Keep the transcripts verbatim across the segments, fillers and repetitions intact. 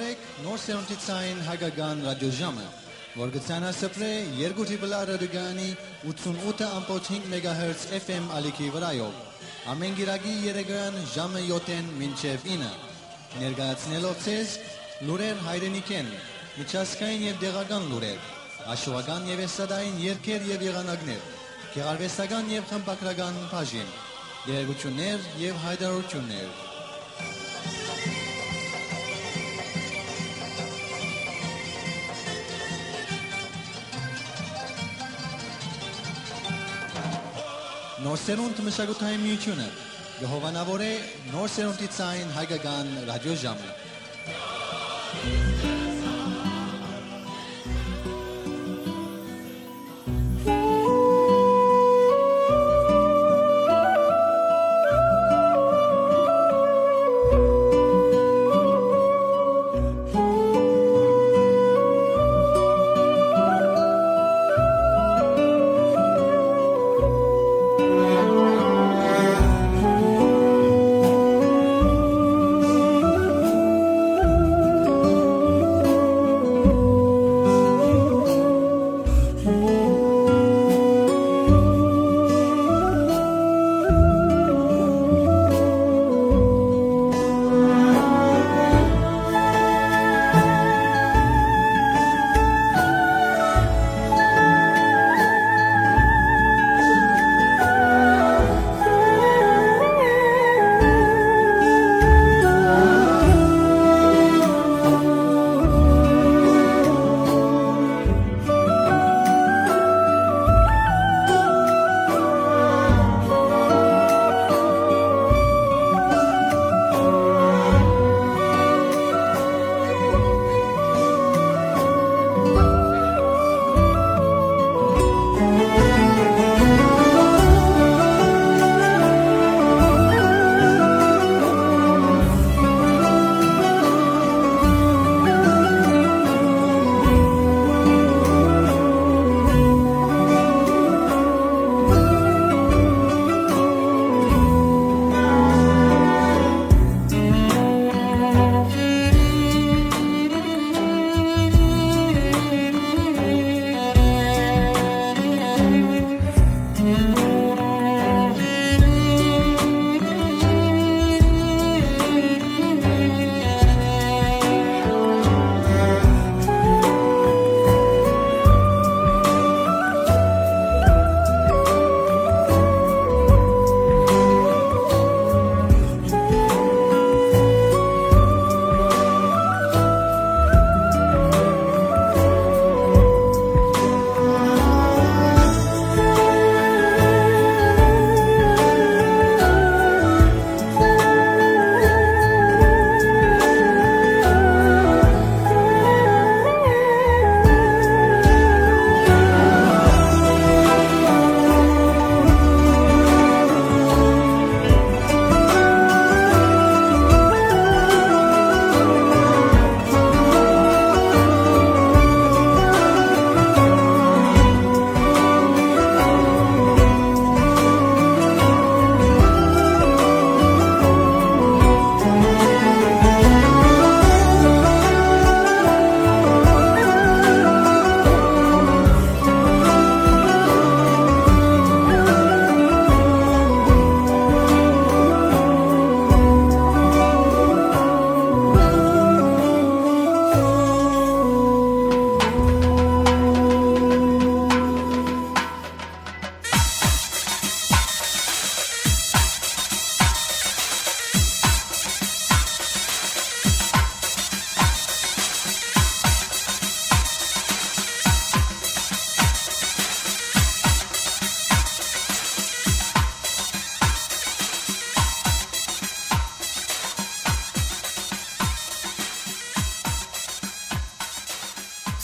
Նոր սերունդի ցային հայկական ռադիոժամը, որ կը ցանասփռէ երկու Triple R ռադիոկայանի ութսունութ ըմբոց հինգ մեգահերց F M ալիքի վրայով, ամէն կիրակի երեկոյեան ժամը յոթ մինչեւ ինը, ներկայացնելով ձեզ լուրեր հայրենիքէն, միջազգային եւ տեղական լուրեր, աշուական եւ էստրադային երգեր եւ եղանակներ, գեղարուեստական եւ խմբագրական բաժին, տեղեկութիւններ եւ յայտարարութիւններ։ Նոր սերունդ մշակութային միութիւնը կը հովանաւորէ նոր սերունդի ցային հայկական ռադիոժամը։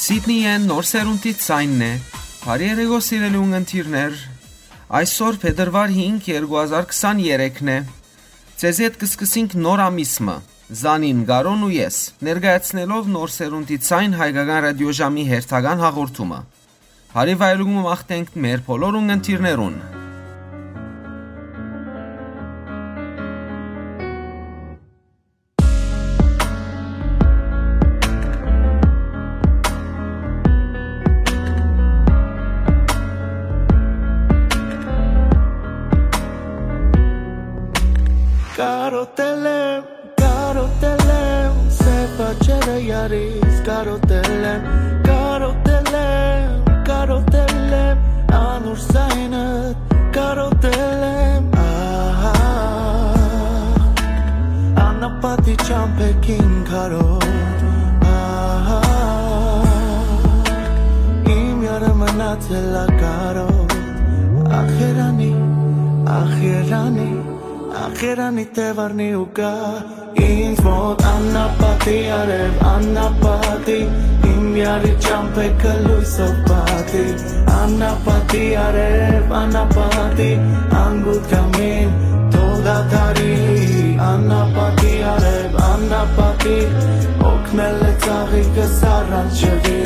Սիդնիէն նոր սերունդի ցայնն է։ Բարի երեկո, սիրելի ունգընտիրներ։ Այսօր փետրուար հինգ, երկու հազար քսաներեքն է։ Ձեզ հետ կը սկսենք նոր ամիս մը։ Զանին, Կարոն ու ես, ներկայացնելով նոր սերունդի ցայն հայկական ռադիոժամի հերթական հաղորդումը։ Բարի վայելում մաղթենք մեր բոլոր ունգընտիրներուն։ Կարոտել եմ, կարոտել եմ, սեփ աչերը յարից կարոտել եմ, կարոտել եմ, կարոտել եմ, անոր սայնը կարոտել եմ, ահա, անապատի ճամփեքին քարոտ, ահա, իմ յարը մնացել ա կարոտ, ախ երանի, ախ երանի, ախ երանի դեվարնի ու գա, ինձ մոտ անապատի արև, անապատի, իմ յարի ճամփեքը լոյսով պատի, անապատի արև, անապատի, անգութ կամին, թող դադարի, անապատի արև, անապատի, օգնել է ծաղիկս առանց ջղի,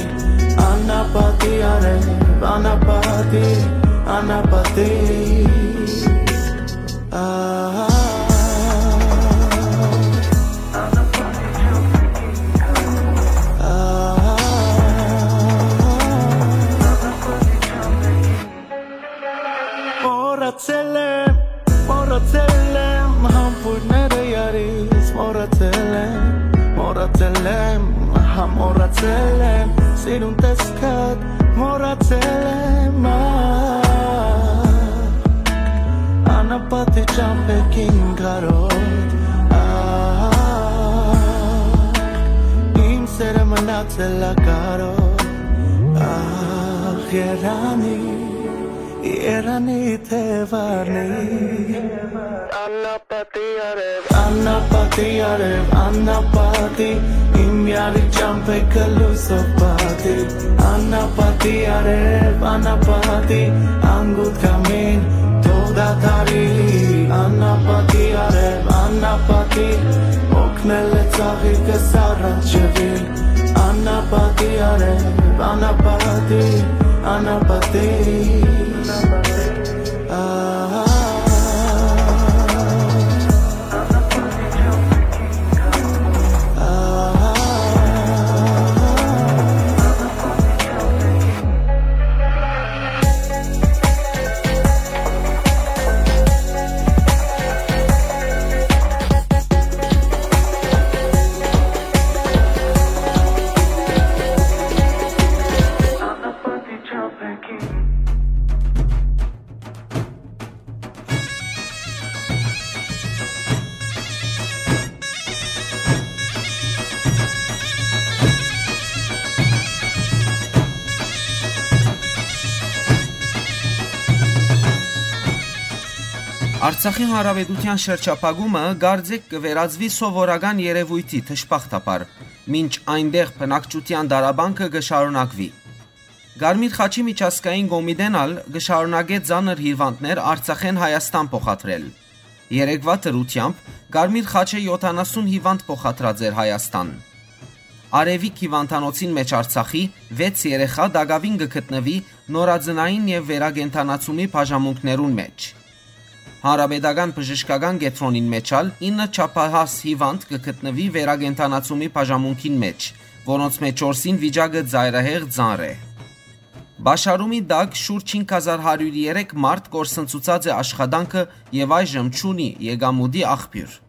անապատի արև, անապատի, անապատի, ահա, ահա, մոռացել եմ, մոռացել եմ, համբույրները յարից մոռացել եմ, մոռացել եմ, հա, մոռացել եմ, սիրուն տեսքդ մոռացել եմ, ա, անապատի ճամփեքին կարոտ, ա, իմ սերը մնացել ա կարոտ, ախ երանի, երանի թեվարնի, անապատի արև, անապատի արև, անապատի, իմ յարի ճամփեքը լոյսով պատի, անապատի արև, անապատի, անգութ կամին, թող դադարի, անապատի արև, անապատի, օգնել է ծաղիկս առանց ջղի, անապատի արև, անապատի, անապատի, ահա, ահա, Արցախի Հանրապետութեան շրջափակումը կարծէք կը վերածուի սովորական երեւոյթի դժբախտաբար, մինչ այնտեղ բնակչութեան տառապանքը կը շարունակուի։ Կարմիր խաչի միջազգային կոմիտեն ալ կը շարունակէ ծանր հիվանդներ Արցախէն Հայաստան փոխադրել։ Երեկվայ դրութեամբ Կարմիր խաչը յոթանասուն հիվանդ փոխադրած էր Հայաստան։ Արեւիկ հիվանդանոցին մէջ Արցախի վեց երեխայ տակաւին կը գտնուի նորածնային եւ վերակենդանացումի բաժանմունքներուն մէջ։ Հանրապետական բժշկական կեդրոնին մէջ ալ ինը չափահաս հիվանդ կը գտնուի վերակենդանացումի բաժանմունքին մէջ, որոնց մէջ չորսին վիճակը ծայրահեղ ծանր է։ Պաշարումի տակ շուրջ հինգ հազար հարիւր երեք մարդ կորսնցուցած է աշխատանքը եւ այժմ չունի եկամուտի աղբիւր։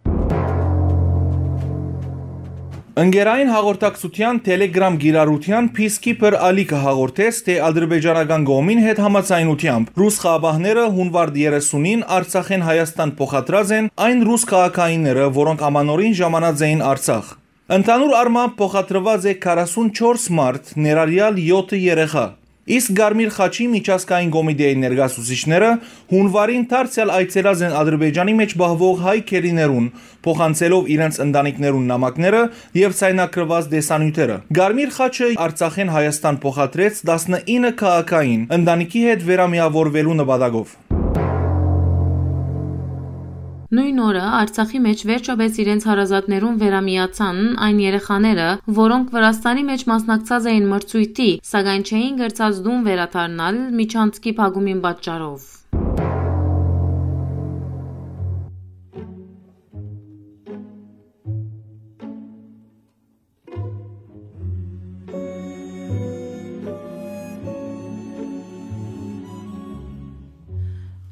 Ընկերային հաղորդակցութեան Telegram կիրառութեան Peacekeeper Ալիքը հաղորդեց, թէ ադրբեջանական կողմին հետ համաձայնութեամբ ռուս խաղաղապահները հունուար երեսունին Արցախէն Հայաստան փոխադրած են այն ռուս քաղաքայինները, որոնք ամանորին ժամանած էին Արցախ։ Ընդհանուր առմամբ փոխադրուած է քառասունչորս մարդ, ներառյալ յոթը երեխայ։ Իսկ Կարմիր խաչի միջազգային կոմիտեին ներկայացուցիչները հունուարին դարձեալ այցելած են Ադրբեջանի մէջ պահուող հայ գերիներուն, փոխանցելով իրենց ընտանիքներուն նամակները եւ ցայնագրուած տեսանիւթերը։ Կարմիր խաչը Արցախէն Հայաստան փոխադրեց տասնինը քաղաքային, ընտանիքի հետ վերամիավորուելու նպատակով։ Նոյն օրը Արցախի մէջ վերջապէս իրենց հարազատներուն վերամիացան այն երեխաները, որոնք Վրաստանի մէջ մասնակցած էին մրցոյթի, սակայն չէին կրցած տուն վերադառնալ միջանցքի փակումին պատճառով։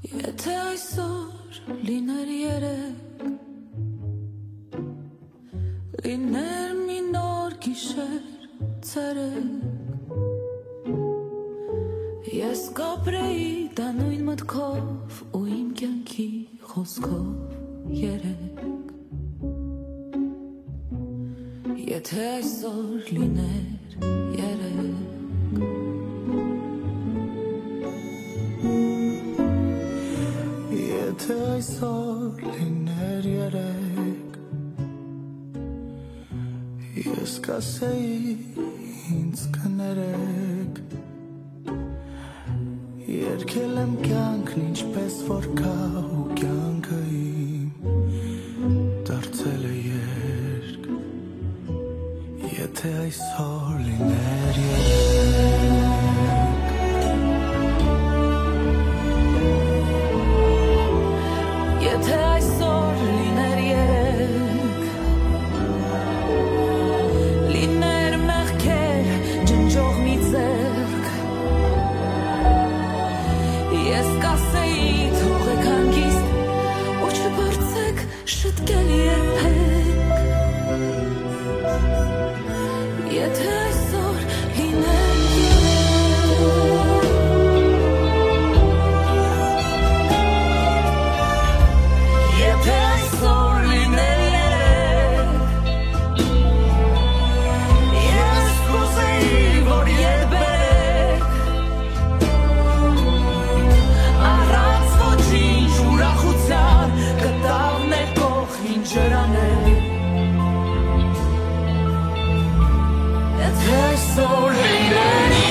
Եթե այսօր լիներ երեկ, Ես կապրեի դա նոյն մտքով ու իմ կեանքի խօսքով երեկ։ Եթե այսօր լիներ երեկ։ Եթե այսօր լիներ երեկ, ես կասեի ինձ կներեք, երկել եմ կյանքն ինչպես որ կա ու կյանքը իմ դարձել է երկ, եթե այսօր լիներ երեկ։ Եթե այսօր լիներ երեկ, լիներ մեղքեր ջնջող մի ձեռք, ես կասեի թողեք հանգիստ ու չփորձեք շտկել երբեք։ Եթե այսօր լիներ երեկ, եթե այսօր լիներ երեկ, ես կուզեի որ երբեք առանց ոչինչ ուրախության կտավներ քո խինջերաներ։ Եթե այսօր լիներ երեկ,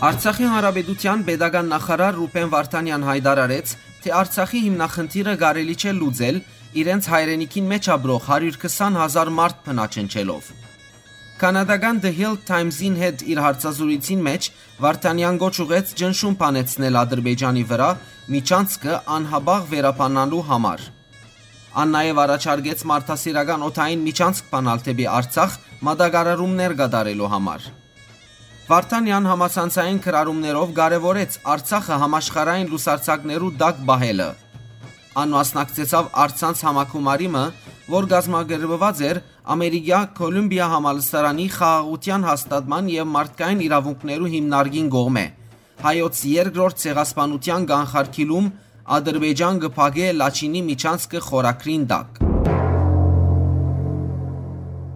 Արցախի Հանրապետութեան պետական նախարար Ռուբեն Վարդանեան յայտարարեց, թէ Արցախի հիմնախնդիրը կարելի չէ լուծել՝ իրենց հայրենիքին մէջ ապրող հարիւր քսան հազար մարդ բնաջնջելով։ Քանատական The Hill Times-ին հետ իր հարցազրույցին մէջ Վարդանեան կոչ ուղղեց ճնշում բանեցնել Ադրբեջանի վրայ միջանցքը անհապաղ վերաբանալու համար։ Ան նաեւ առաջարկեց մարդասիրական օդային միջանցք բանալ դէպի Արցախ՝ մատակարարումներ կատարելու համար։ Վարդանեան համացանցային գրառումներով կարեւորեց Արցախը համաշխարհային լուսարձակներու տակ պահելը։ Ան մասնակցեցաւ առցանց համագումարի մը, որ կազմակերպուած էր Ամերիկայ Կոլումբիա համալսարանի խաղաղութեան հաստատման եւ մարդկային իրաւունքներու հիմնարկին կողմէ։ Հայոց երկրորդ ցեղասպանութեան կանխարգիլում Ադրբեջան կը փակէ Լաչինի միջանցքը խորագրին տակ։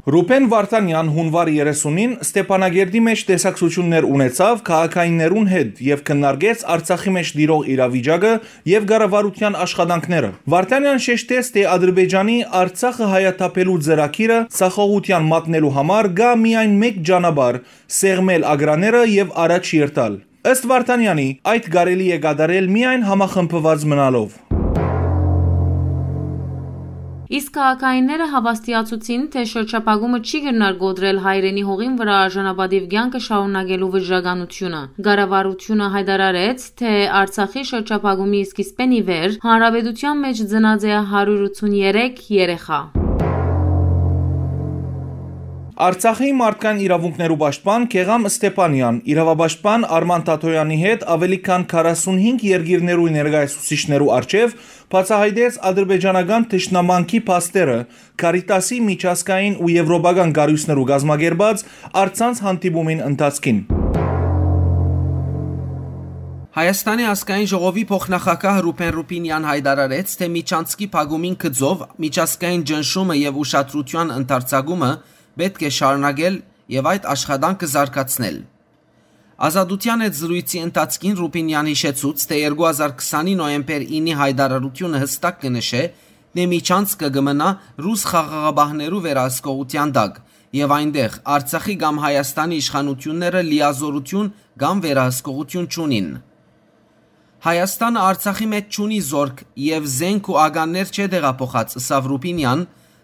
Ռուբեն Վարդանեան հունուար երեսունին Ստեփանակերտի մէջ տեսակցութիւններ ունեցաւ քաղաքայիններուն հետ եւ քննարկեց Արցախի մէջ տիրող իրավիճակը եւ կառավարութեան աշխատանքները։ Վարդանեան շեշտեց, թէ Ադրբեջանի Արցախը հայաթափելու ծրագիրը ձախողութեան մատնելու համար կայ միայն մէկ ճանապարհ՝ սեղմել ագրաները եւ առաջ երթալ։ Ըստ Վարդանեանի, այդ կարելի է կատարել միայն համախմբուած մնալով։ Իսկ քաղաքայինները հաւաստիացուցին, թէ շրջափակումը չի կրնար կոտրել հայրենի հողին վրայ արժանապատիւ կեանքը շարունակելու վճռականությունը։ Կառավարությունը յայտարարեց, թէ Արցախի շրջափակումի սկիզբէն ի վեր հանրապետութեան մէջ ծնած է հարիւր ութսուն երեք երեխայ։ Արցախի մարդկային իրաւունքներու պաշտպան Գեղամ Ստեփանեան իրաւապաշտպան Արման Թաթոյանի հետ աւելի քան քառասունհինգ երկիրներու ներկայացուցիչներու առջեւ բացայայտեց ադրբեջանական թշնամանքի փաստերը Կարիտասի միջազգային ու եվրոպական կառոյցներու կազմակերպած առցանց հանդիպումին ընթացքին։ Հայաստանի ազգային ժողովի փոխնախագահ Ռուբեն Ռուբինեան յայտարարեց, թէ Միչանցկի փակումին գծով միջազգային ճնշումը եւ ուշադրութեան ընդարձակումը պէտք է շարունակել եւ այդ աշխատանքը զարգացնել։ Ազատութեան հետ զրոյցի ընթացքին Ռուբինեան յիշեցուց, թէ երկու հազար քսանի նոյեմբեր ինի յայտարարութիւնը յստակ կը նշէ, թէ Միչանցկը կը մնայ ռուս խաղաղապահներու վերահսկողութեան տակ եւ այնտեղ Արցախի կամ Հայաստանի իշխանութիւնները լիազօրութիւն կամ վերահսկողութիւն չունին։ Հայաստանը Արցախի մէջ չունի զօրք եւ զէնք ու ականներ չէ տեղափոխած, ըսաւ Ռուբինեան,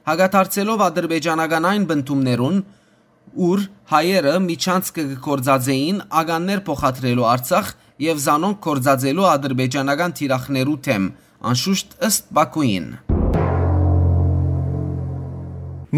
հակադարձելով ադրբեջանական այն պնդումներուն, ուր հայերը Միչանցկը կը գործածէին ականներ փոխադրելու Արցախ եւ զանոնք գործածելու ադրբեջանական թիրախներու դէմ, անշուշտ ըստ Պաքուին։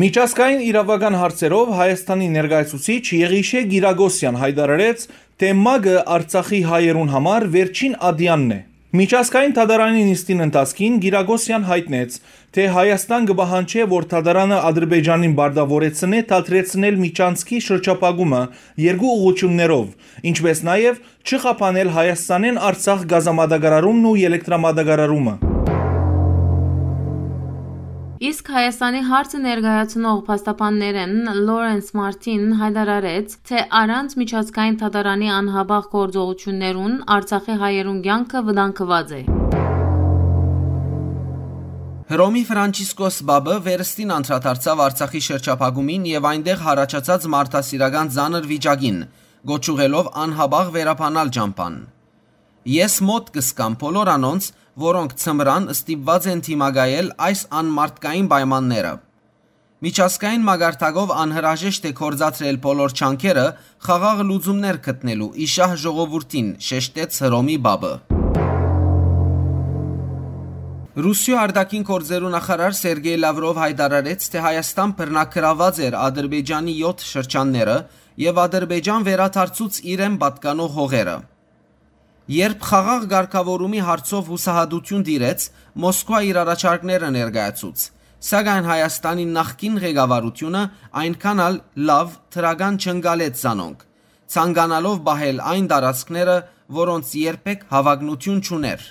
Միջազգային իրաւական հարցերով Հայաստանի ներկայացուցիչ Եղիշէ Գիրագոսեան յայտարարեց, թէ ՄԱԿ-ը Արցախի հայերուն համար վերջին ատեանն է։ Միջազգային դատարանի նիստին ընթացքին Գիրագոսեան յայտնեց, թէ Հայաստան կը պահանջէ, որ դատարանը Ադրբեջանին պարտաւորեցնէ դադրեցնել Միչանցկի շրջափակումը երկու ուղղություններով, ինչպէս նաեւ չխափանել Հայաստանէն Արցախ գազամատակարարումն ու ելեկտրամատակարարումը։ Իսկ Հայաստանի հարցը ներկայացնող փաստաբաններէն Լորենս Մարտին յայտարարեց, թէ առանց միջազգային դատարանի անհապաղ գործողութիւններուն Արցախի հայերուն կեանքը վտանգուած է։ Հռոմի Ֆրանցիսկոս Պապը վերստին անդրադարձաւ Արցախի շրջափակումին եւ այնտեղ յառաջացած մարդասիրական ծանր վիճակին, կոչ ուղղելով անհապաղ վերաբանալ ճամբան։ «Ես մօտ կ'ըսկամ բոլոր անոնց, որոնք ձմրան ստիպուած են դիմակայել այս անմարդկային պայմանները։ Միջազգային մակարդակով անհրաժեշտ է գործադրել բոլոր ջանքերը՝ խաղաղ լուծումներ գտնելու ի շահ ժողովուրդին», շեշտեց Հռոմի Պապը։ Ռուսիոյ արտաքին գործերու նախարար Սերգեյ Լավրով յայտարարեց, թէ Հայաստան բռնագրաւած էր Ադրբեջանի եօթ շրջանները եւ Ադրբեջան վերադարձուց իրեն պատկանող հողերը։ Երբ խաղաղ կարգաւորումի հարցով յուսահատութիւն տիրեց, Մոսկվա իր առաջարկները ներկայացուց, սակայն Հայաստանի նախկին ղեկավարութիւնը այնքան ալ լաւ դրական չընկալեց զանոնք, ցանկանալով պահել այն տարածքները, որոնց երբեք հաւագնութիւն չունէր,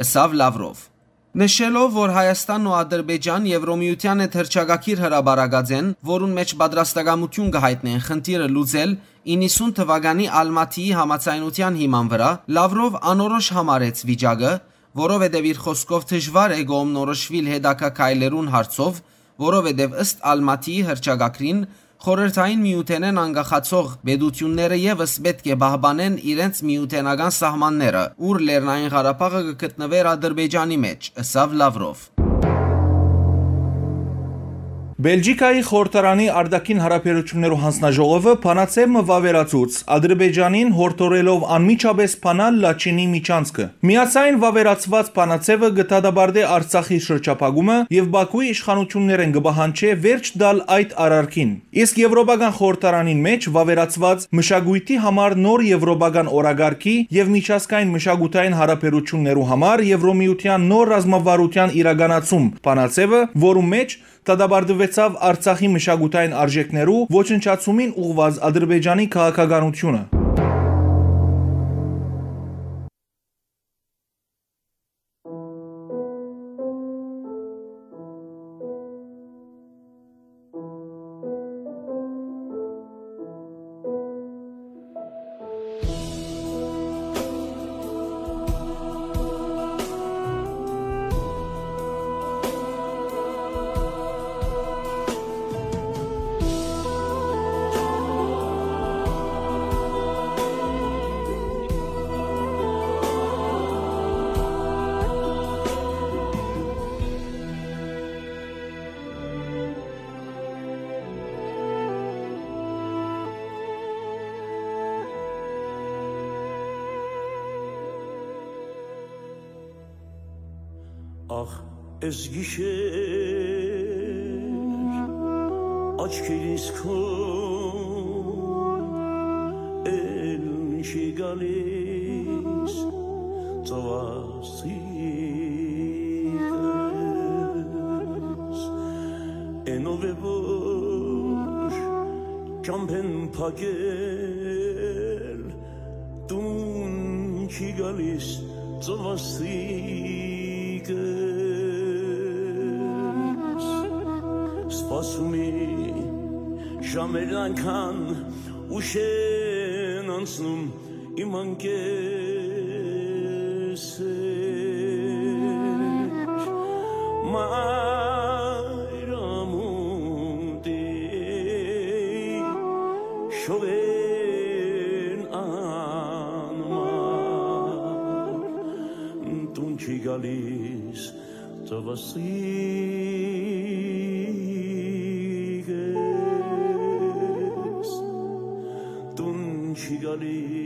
ըսաւ Լավրով։ Նշելով, որ Հայաստանն ու Ադրբեջան Եվրոմիութեան հետ հռչակագիր հրապարակած են, որուն մէջ պատրաստակամութիւն կը յայտնեն խնդիրը լուծել, իննսուն թուականի Ալմաթիի համաձայնութեան հիման վրայ, Լավրով անորոշ համարեց վիճակը, որովհետեւ իր խօսքով դժուար է կողմնորոշուիլ հետագայ քայլերուն հարցով, որովհետեւ ըստ Ալմաթիի հռչակագրին, Խորհրդային Միութենէն անկախացող պետութիւնները եւս պէտք է պահպանեն իրենց միութենական սահմանները, ուր Լեռնային Ղարաբաղը կը գտնուէր Ադրբեջանի մէջ, ըսաւ Լավրով։ Բելգիքայի խորհրդարանի արտաքին հարաբերություններու հանձնաժողովը բանաձեւ մը վաւերացուց Ադրբեջանին, յորդորելով անմիջապէս բանալ Լաչինի միջանցքը։ Միացային վաւերացուած բանաձեւը կը դատապարտէ Արցախի շրջափակումը եւ Բաքուի իշխանություններէն կը պահանջէ վերջ տալ այդ արարքին։ Իսկ Եվրոպական խորհրդարանին մէջ վաւերացուած մշակոյթի համար նոր եվրոպական օրակարգի եւ միջազգային մշակութային հարաբերություններու համար Եվրոմիութեան նոր ռազմավարութեան իրականացում բանաձեւը, որու մէջ դատապարտուեցաւ Արցախի մշակութային արժեքներու ոչնչացումին ուղղուած Ադրբեջանի քաղաքականութիւնը։ Ախ, էս գիշեր, Աչքերիս քո էլ չի գալիս ծովասիկս, էնով է որ ճամբեն փակել տուն չի գալիս ծովասիկս։ Սպասում է ժամերն անկան ուշ են անցնում իմ անկեսեր։ Մայր ամուտի շողեն անմար տուն չի գալիս ծովասիկս, տուն չի գալիս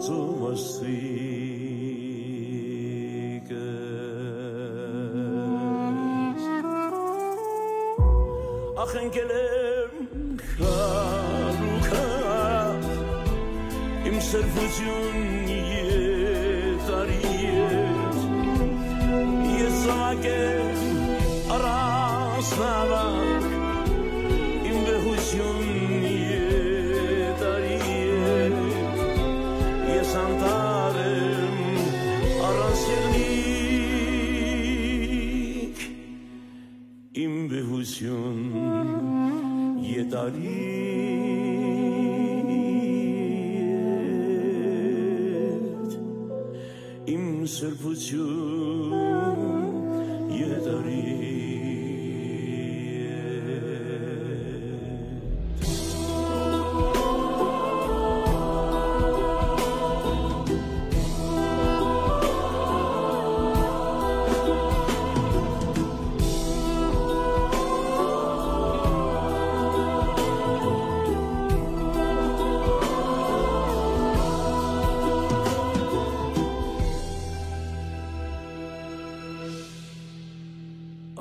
ծովասիկս։ Ախ, ընկել եմ քարուքա, իմ սրբություն եթարի հետ, ես զաւակ եմ առանց նավակ, իմ վեհություն եթարի հետ, ես անտառ եմ առանց եղնիկ, իմ վեհություն եթարի հետ, իմ սրբություն եթարի հետ։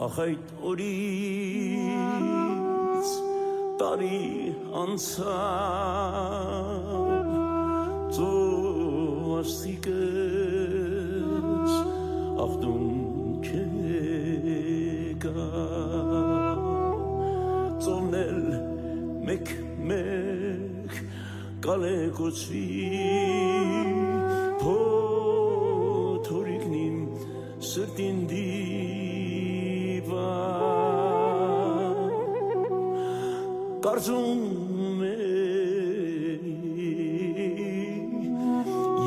Ախ, այդ օրից տարի անցաւ, ծովասիկս ախտուն չեկա, ծովն էլ մեկ-մեկ կալեկոծուի, փոթորիկն իմ սրտին դիպա, կարծում է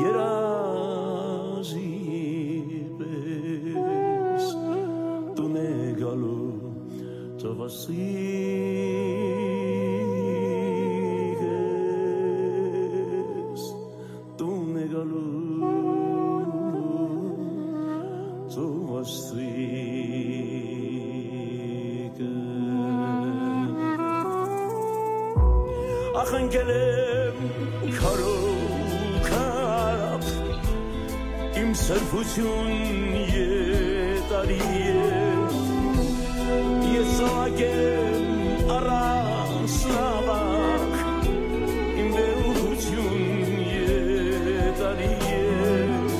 երազի պես տուն է գալու ծովասիկս, տուն է գալու ծովասիկս։ Ախ, ընկել եմ քարոքապ, իմ սրբություն եթարի հետ, ես զաւակ եմ առանց նաւակ, իմ վեհություն եթարի հետ,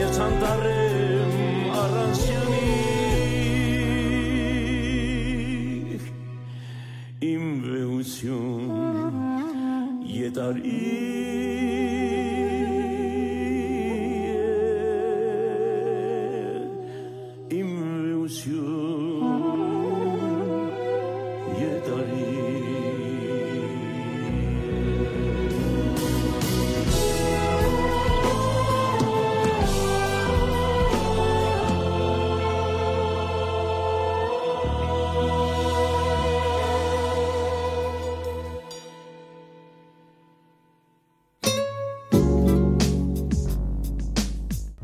ես անտառ եմ առանց եղնիկ, իմ վեհություն եթարի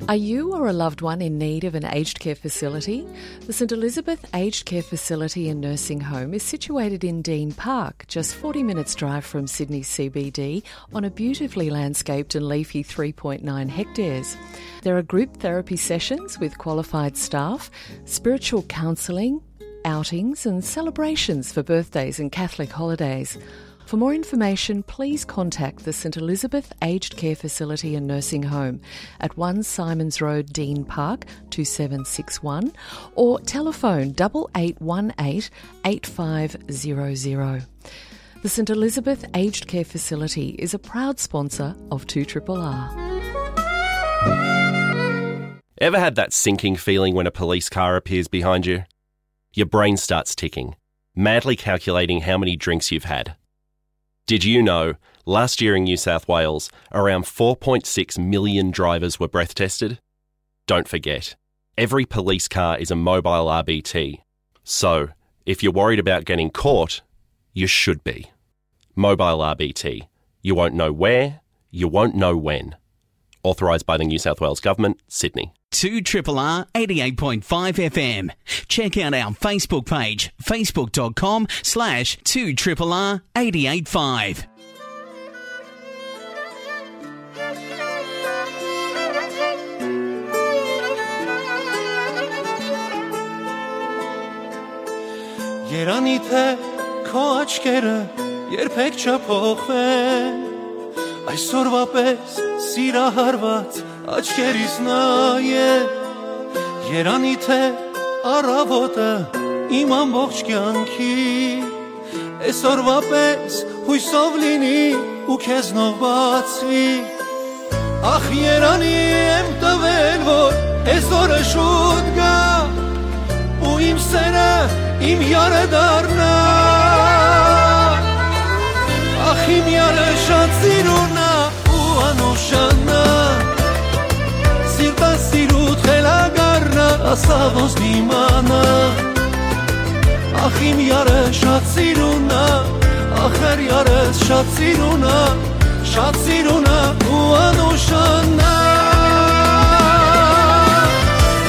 Are you or a loved one in need of an aged care facility? The St Elizabeth Aged Care Facility and Nursing Home is situated in Dean Park, just forty minutes' drive from Sydney C B D, on a beautifully landscaped and leafy three point nine hectares. There are group therapy sessions with qualified staff, spiritual counselling, outings and celebrations for birthdays and Catholic holidays. For more information, please contact the St Elizabeth Aged Care Facility and Nursing Home at one Symonds Road, Dean Park, two seven six one, or telephone double eight one eight eight five zero zero. The St Elizabeth Aged Care Facility is a proud sponsor of two triple R. Ever had that sinking feeling when a police car appears behind you? Your brain starts ticking, madly calculating how many drinks you've had. Did you know last year in New South Wales, around four point six million drivers were breath tested? Don't forget, every police car is a mobile R B T. So, if you're worried about getting caught, you should be. Mobile R B T. You won't know where, you won't know when. Authorised by the New South Wales Government, Sydney. Two triple R eighty-eight point five F M. Check out our Facebook page, facebook dot com slash two triple R eight eight five. Երանի թե քո աչքերը երբեք չփոխվեն, այսօրվա պես սիրահարված աչքերիս նայե։ Երանի թե առավոտը իմ ամբողջ կյանքի այսօրվա պես յուսով լինի ու քեզնով բացվի։ Ախ, երանի եմ տվել, որ այսօրը շուտ գայ ու իմ սերը իմ յարը դառնայ։ Ախ, իմ յարը շատ սիրուն ա ու անուշանա, սիրտը սիրուդ խելագարնա, ասա ոնց դիմանա։ Ախ, իմ յարը շատ սիրուն ա, ախր յարս շատ սիրուն ա, շատ սիրուն ա ու անուշանա։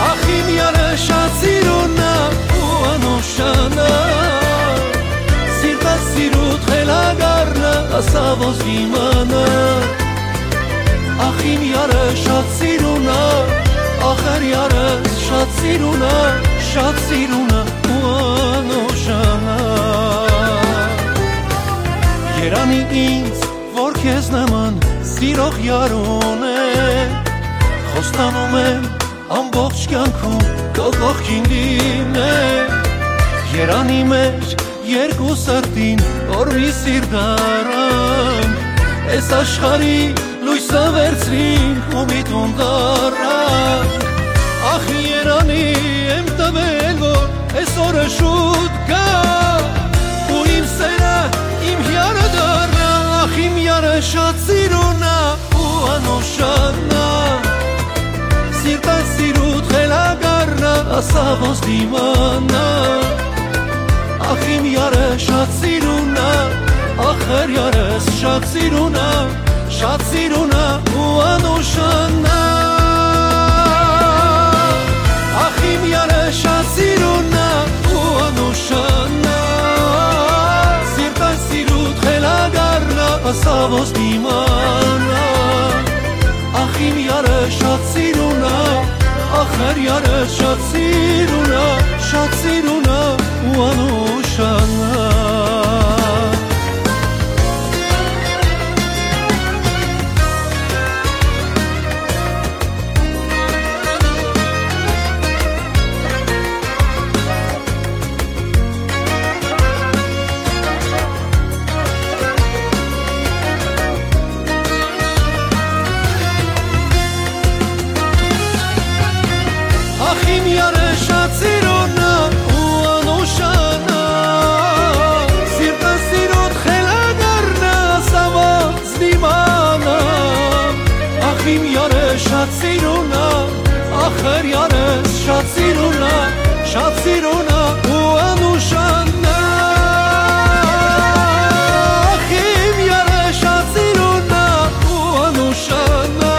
Ախ, իմ յարը շատ սիրուն ա ու անուշանա, սիրտը սիրուդ խելագարնա, ասա ոնց դիմանա։ Ախ, իմ յարը շատ սիրուն ա, ախր յարս շատ սիրուն ա, շատ սիրուն ա ու անուշանա։ Երանի ինձ, որ քեզ նման սիրող յար ունեմ, խոստանում եմ ամբողջ կյանքում քո կողքին լինեմ։ Երանի մեր երկու սրտին, որ մի սիրտ առանք, այս աշխարհի լոյսը վերցրինք ու մի տուն դառնանք։ Ախ, երանի եմ տվել, որ այսօրը շուտ գայ ու իմ սերը իմ յարը դառնայ։ Ախ, իմ յարը շատ սիրուն ա ու անուշանա, սիրտը սիրուդ խելագարնա, ասա ոնց դիմանա։ Ախ, իմ յարը շատ սիրուն ա, ախր յարս շատ սիրուն ա, շատ սիրուն ա ու անուշանա։ Ախ, իմ յարը շատ սիրուն ա ու անուշանա, սիրտը սիրուդ խելագարնա, ասա ոնց դիմանա։ Ախ, իմ յարը շատ սիրուն ա, ախր յարս շատ սիրուն ա, շատ սիրուն ա ու անուշանա։ Ախ, իմ յարը շատ սիրուն ա ու անուշանա, սիրտը սիրուդ խելագարնա, սա ոնց դիմանա։ Ախ, իմ յարը շատ սիրուն ա, ախր յարս շատ սիրուն ա, շատ սիրուն ա ու անուշանա։ Ախ, իմ յարը շատ սիրուն ա ու անուշանա,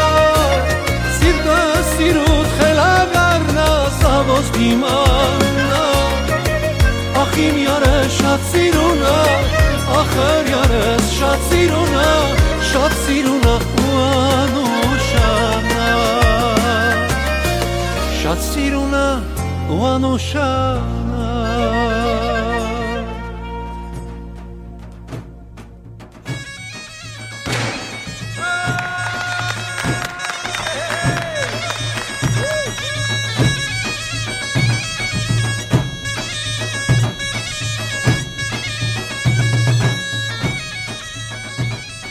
սիրտը սիրուդ Իմ Աննա, ախ իմ յարս շատ սիրուն ա, ախր յարս շատ սիրուն ա, շատ սիրուն ա ու անուշան ա, շատ սիրուն ա ու անուշան ա։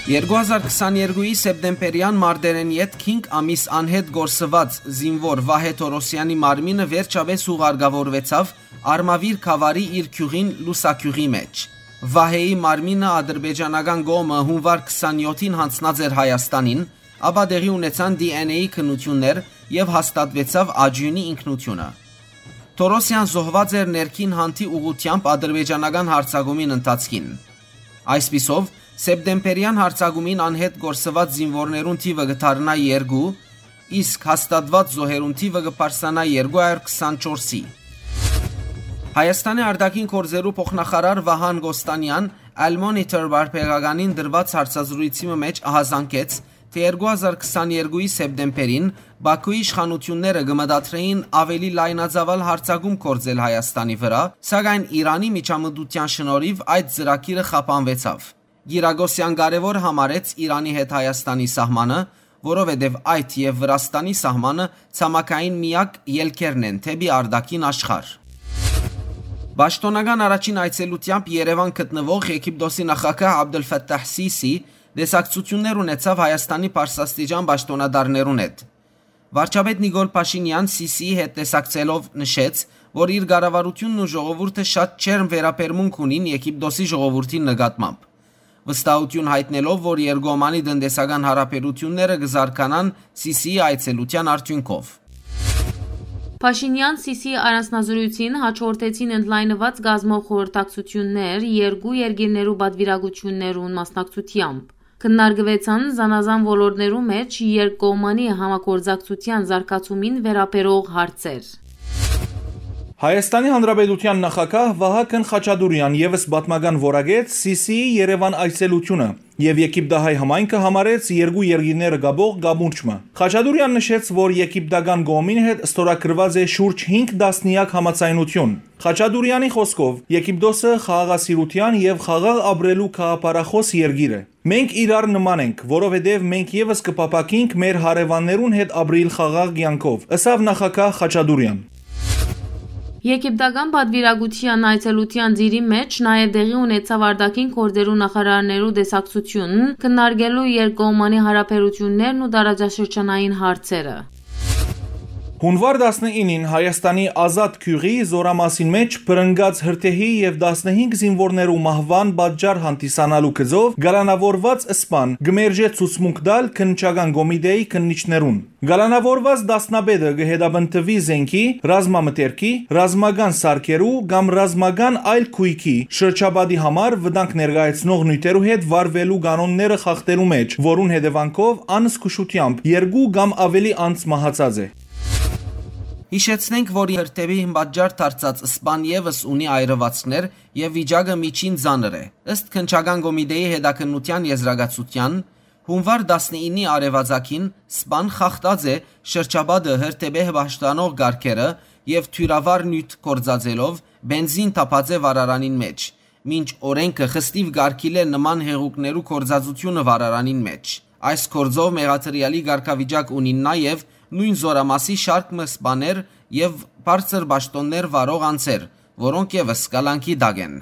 Երկու հազար քսաներկուի սեպտեմբերեան մարտերէն ետք հինգ ամիս անհետ կորսուած զինուոր Վահէ Թորոսեանի մարմինը վերջապէս ուղարկաւորուեցաւ Արմաւիր գաւառի իր գիւղին Լուսագիւղի մէջ։ Վահէի մարմինը ադրբեջանական կողմը հունուար քսանյոթին յանձնած էր Հայաստանին, ապա տեղի ունեցան D N A քննութիւններ եւ հաստատուեցաւ աճիւնի ինքնութիւնը։ Թորոսեան զոհուած էր ներքին հանդի ուղղութեամբ ադրբեջանական յարձակումին ընթացքին։ Այսպիսով, սեպտեմբերեան յարձակումին անհետ կորսուած զինուորներուն թիւը կը դառնայ երկու, իսկ հաստատուած զոհերուն թիւը կը բարձրանայ երկու հարիւր քսանչորսի։ Հայաստանի արտաքին գործերու փոխնախարար Վահան Կոստանեան Al Monitor պարբերականին տրուած հարցազրույցի մը մէջ ահազանգեց, թէ երկու հազար քսաներկուի սեպտեմբերին Բաքուի իշխանութիւնները կը մտադրէին աւելի լայնածաւալ յարձակում գործել Հայաստանի վրայ, սակայն Իրանի միջամտութեան շնորհիւ այդ ծրագիրը խափանուեցաւ։ Կիրակոսեան կարեւոր համարեց Իրանի հետ Հայաստանի սահմանը, որովհետեւ այդ եւ Վրաստանի սահմանը ցամաքային միակ ելքերն են դէպի արտաքին աշխարհ։ Պաշտօնական առաջին այցելութեամբ Երեւան գտնուող Եգիպտոսի նախագահ Աբդուլ Ֆաթահ Սիսի տեսակցութիւններ ունեցաւ Հայաստանի բարձրաստիճան պաշտօնատարներուն հետ։ Վարչապետ Նիկոլ Փաշինեան Սիսիի հետ տեսակցելով նշեց, որ իր կառավարութիւնն ու ժողովուրդը շատ ջերմ վերաբերմունք ունին Եգիպտոսի ժողովուրդին նկատմամբ, վստահութիւն յայտնելով, որ երկկողմանի տնտեսական հարաբերութիւնները կը զարգանան Սիսիի այցելութեան արդիւնքով։ Փաշինեան Սիսիի առանձնազրոյցին հաջորդեցին ընդլայնուած կազմով խորհրդակցութիւններ երկու երկիրներու պատվիրակութիւններուն մասնակցութեամբ։ Քննարկուեցան զանազան ոլորտներու մէջ երկկողմանի համագործակցութեան զարգացումին վերաբերող հարցեր։ Հայաստանի Հանրապետութեան նախագահ Վահագն Խաչատուրեան եւս պատմական որակեց Սիսիի Երեւան այցելութիւնը եւ Եգիպտահայ համայնքը համարեց երկու երկիրները կապող կամուրջ մը։ Խաչատուրեան նշեց, որ եգիպտական կողմին հետ ստորագրուած է շուրջ հինգ տասնեակ համաձայնութիւն։ Խաչատուրեանի խօսքով, Եգիպտոսը խաղաղասիրութեան եւ խաղաղ ապրելու գաղափարախօս երկիր է։ «Մենք իրար նման ենք, որովհետեւ մենք եւս կը փափաքինք մեր հարեւաններուն հետ ապրիլ խաղաղ կեանքով», ըսաւ նախագահ Խաչատուրեան։ Եգիպտական պատվիրակութեան այցելութեան ծիրի մէջ նաեւ տեղի ունեցաւ արտաքին գործերու նախարարներու տեսակցութիւն, քննարկելու երկկողմանի հարաբերութիւններն ու տարածաշրջանային հարցերը։ Հունուար տասնինին Հայաստանի Ազատ գիւղի Զորամասին մէջ բռնկած հրդեհի եւ տասնհինգ զինուորներու մահուան պատճառ հանդիսանալու գծով կալանաւորուած սպան կը մերժէ ցուցմունք տալ քննչական կոմիտէի քննիչներուն։ Կալանաւորուած դասնապետը կը հետապնդուի զէնքի, ռազմամթերքի, ռազմական սարքերու կամ ռազմական այլ գոյքի, շրջապատի համար վտանգ ներկայացնող նիւթերու հետ վարուելու կանոնները խախտելու մէջ, որուն հետեւանքով անզգուշությամբ երկու կամ աւելի անձ մահացած է։ Յիշեցնենք, որ հրդեհին պատճառ դարձած սպան եւս ունի այրուածքներ եւ վիճակը միջին ծանր է։ Ըստ քննչական կոմիտէի հետաքննութեան եզրակացութեան, հունուար տասնինի արեւածագին սպան խախտած է շրջապատը հրդեհ պաշտպանող կարգերը եւ թիւրավար նիւթ գործածելով բենզին թափած է վառարանին մէջ, մինչ օրէնքը խստիւ կարգիլել նման հեղուկներու գործածութիւնը վառարանին մէջ։ Այս գործով մեղադրեալի կարգավիճակ ունին նաեւ նոյն զորամասի շարք մը սպաներ եւ բարձր պաշտօններ վարող անձեր, որոնք եւս կալանքի տակ են։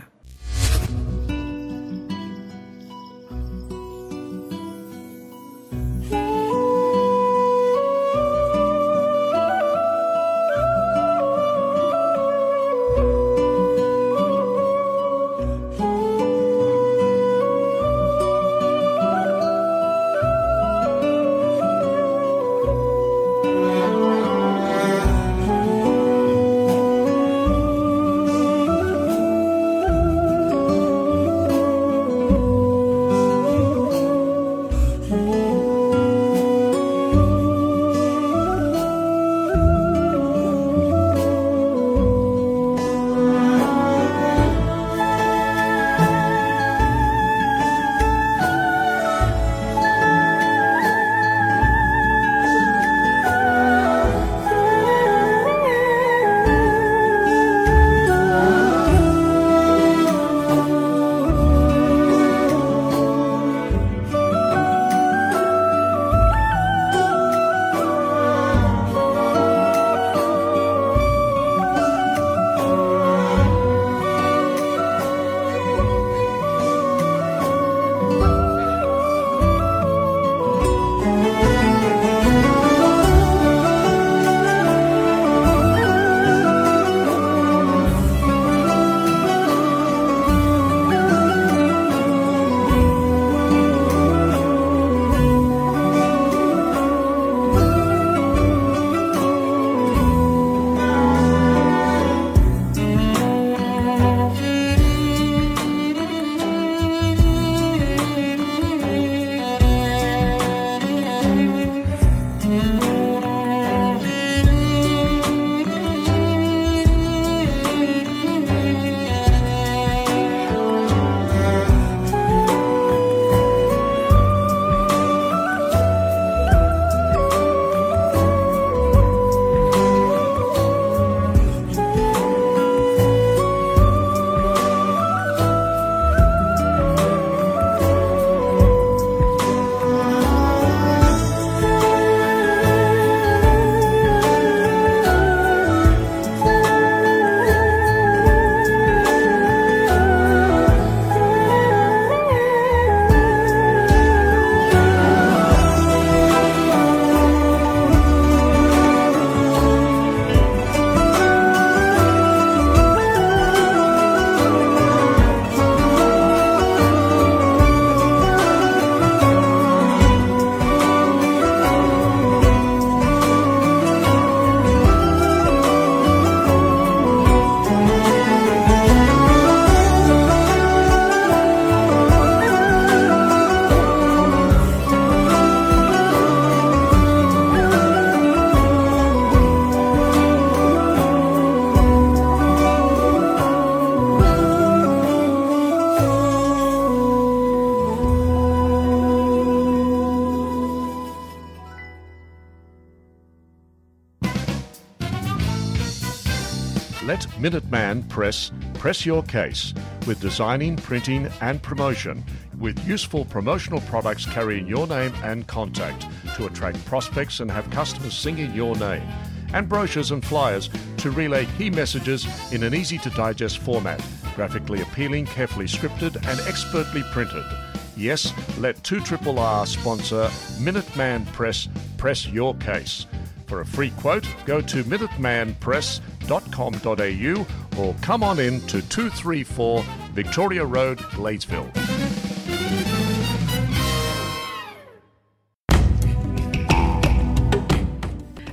Let Minuteman Press press your case with designing, printing, and promotion, with useful promotional products carrying your name and contact to attract prospects and have customers singing your name, and brochures and flyers to relay key messages in an easy to digest format, graphically appealing, carefully scripted, and expertly printed. Yes, let two triple R sponsor Minuteman Press press your case. For a free quote, go to minuteman press dot com dot a u or come on in to two three four Victoria Road, Gladesville.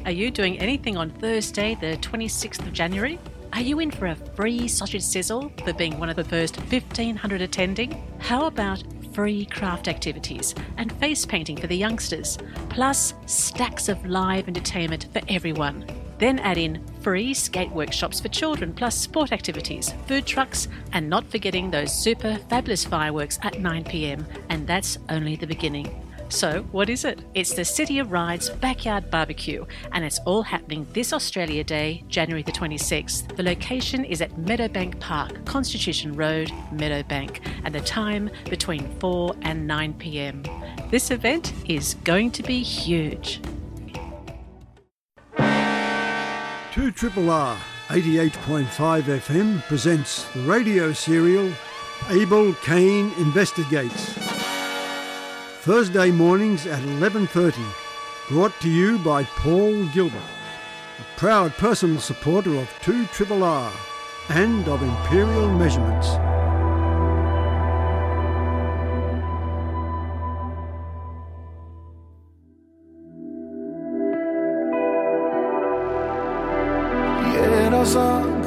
Are you doing anything on Thursday, the twenty-sixth of January? Are you in for a free sausage sizzle for being one of the first fifteen hundred attending? How about free craft activities and face painting for the youngsters, plus stacks of live entertainment for everyone? Then add in free skate workshops for children, plus sport activities, food trucks, and not forgetting those super fabulous fireworks at nine p.m. And that's only the beginning. So, what is it? It's the City of Rides Backyard Barbecue, and it's all happening this Australia Day, January the twenty-sixth. The location is at Meadowbank Park, Constitution Road, Meadowbank, and the time between four and nine p.m. This event is going to be huge. Two triple R, eighty-eight point five F M presents the radio serial Abel Cain Investigates. Thursday mornings at eleven thirty, brought to you by Paul Gilbert, a proud personal supporter of two triple R and of Imperial Measurements. Երազանք,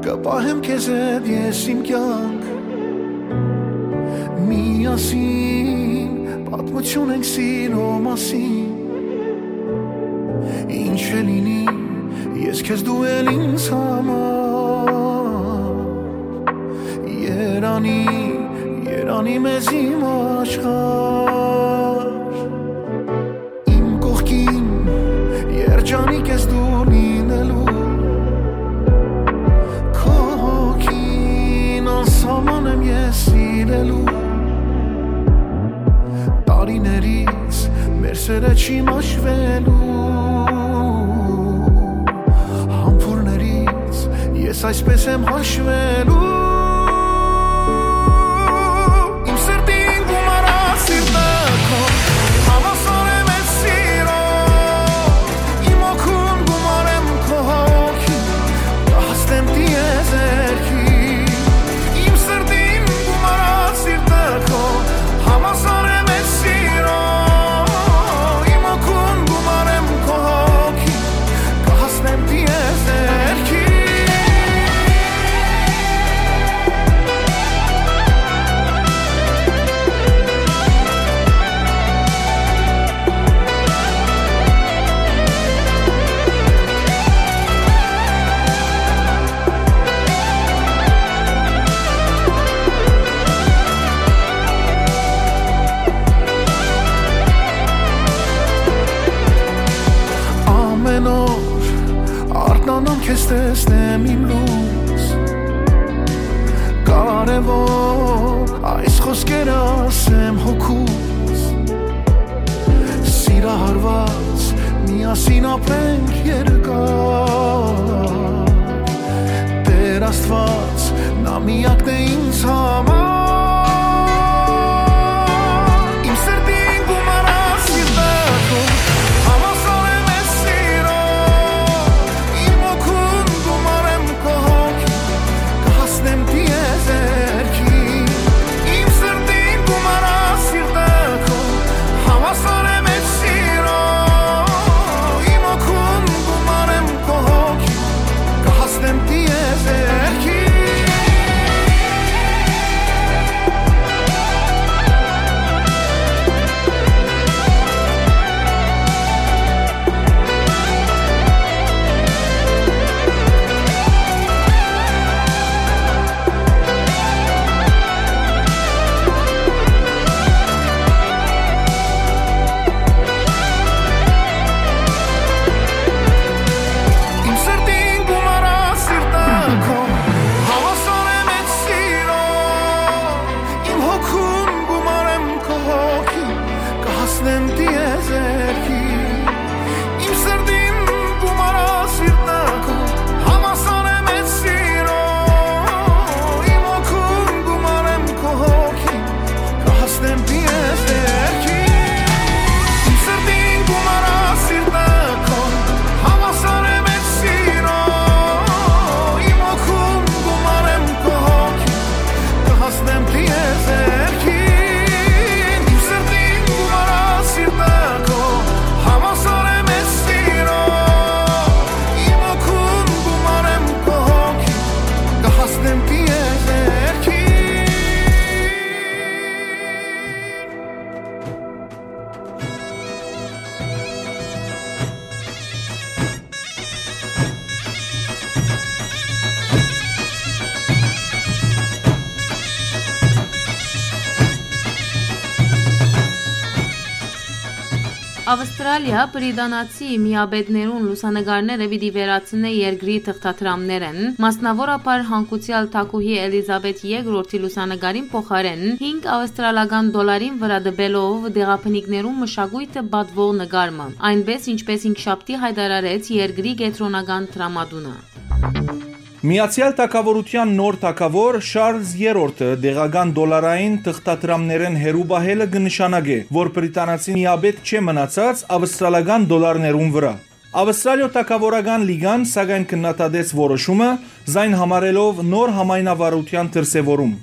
կը պահեմ քեզ հետ ես իմ կյանք։ Միասին պատմություն ենք սիրո մասին։ Ինչ է լինի, ես քեզ, դու էլ ինձ համար։ Երանի, երանի մեզ իմ աշխարհ։ Իմ կողքին երջանիկ ես դու լինելու, քո հոգին անսահման եմ ես սիրելու։ Տարիներից մեր սերը չի մաշվելու, համբուրներից ես այսպես եմ հաշվելու։ Իմ սրտին գումարած սիրտը քո, հավասար եմ ես սիրո, իմ օգուն գումարեմ քո հոգին, կհասնեմ տիեզերքի։ Իմ սրտին գումարած սիրտը քո, հավասար եմ ես սիրո, իմ օգուն գումարեմ քո հոգին, կհասնեմ տիեզերքի։ Ամեն օր արթնանամ քեզ տեսնեմ իմ լույս, կարևոր այս խոսքերը ասեմ հոգուս։ Սիրահարված միասին ապրենք երկար, Տեր Աստված, նա միակն է ինձ համար։ Իմ սրտին գումարած սիրտը քո, հավասար եմ ես սիրո, իմ օգուն գումարեմ քո հոգին, կհասնեմ տիեզերքի։ Իմ սրտին գումարած սիրտը քո, հավասար եմ ես սիրո, իմ օգուն գումարեմ քո հոգին, կհասնեմ տիեզերքի։ Ավստրալիա բրիտանացի միապետներուն լուսանկարները պիտի վերացնէ երկրի թղթադրամներէն, մասնաւորաբար հանգուցեալ թագուհի Էլիզաբեթ երկրորդի լուսանկարին փոխարէն հինգ ավստրալական դոլարին վրայ տուելով տեղաբնիկներուն մշակոյթը պատուող նկար մը, այնպէս ինչպէս հինգշաբթի յայտարարեց երկրի կեդրոնական դրամատունը։ Միացեալ Թագաւորութեան նոր թագաւոր Շարլզ Երրորդը տեղական դոլարային թղթադրամներէն հեռու պահելը կը նշանակէ, որ բրիտանացի միապետ չէ մնացած ավստրալական դոլարներուն վրայ։ Ավստրալիոյ թագաւորական լիգան, սակայն, քննադատեց որոշումը, զայն համարելով նոր համայնավարութեան դրսեւորում։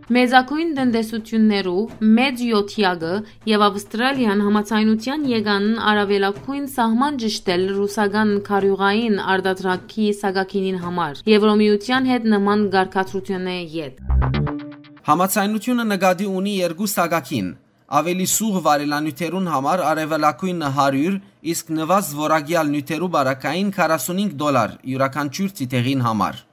Մեծագոյն տնտեսութիւններու մեծ յոթեակը եւ Ավստրալիան համաձայնութեան եկան առաւելագոյն սահման ճշդել ռուսական քարիւղային արտադրանքի սակագինին համար, Եվրոմիութեան հետ նման կարգադրութիւնէ յետ։ Համաձայնութիւնը նկատի ունի երկու սակագին, աւելի սուղ վարելանիւթերուն համար առաւելագոյնը հարիւր, իսկ նուազ որակեալ նիւթերու պարագային քառասունհինգ դոլար իւրաքանչիւր թիթեղին համար։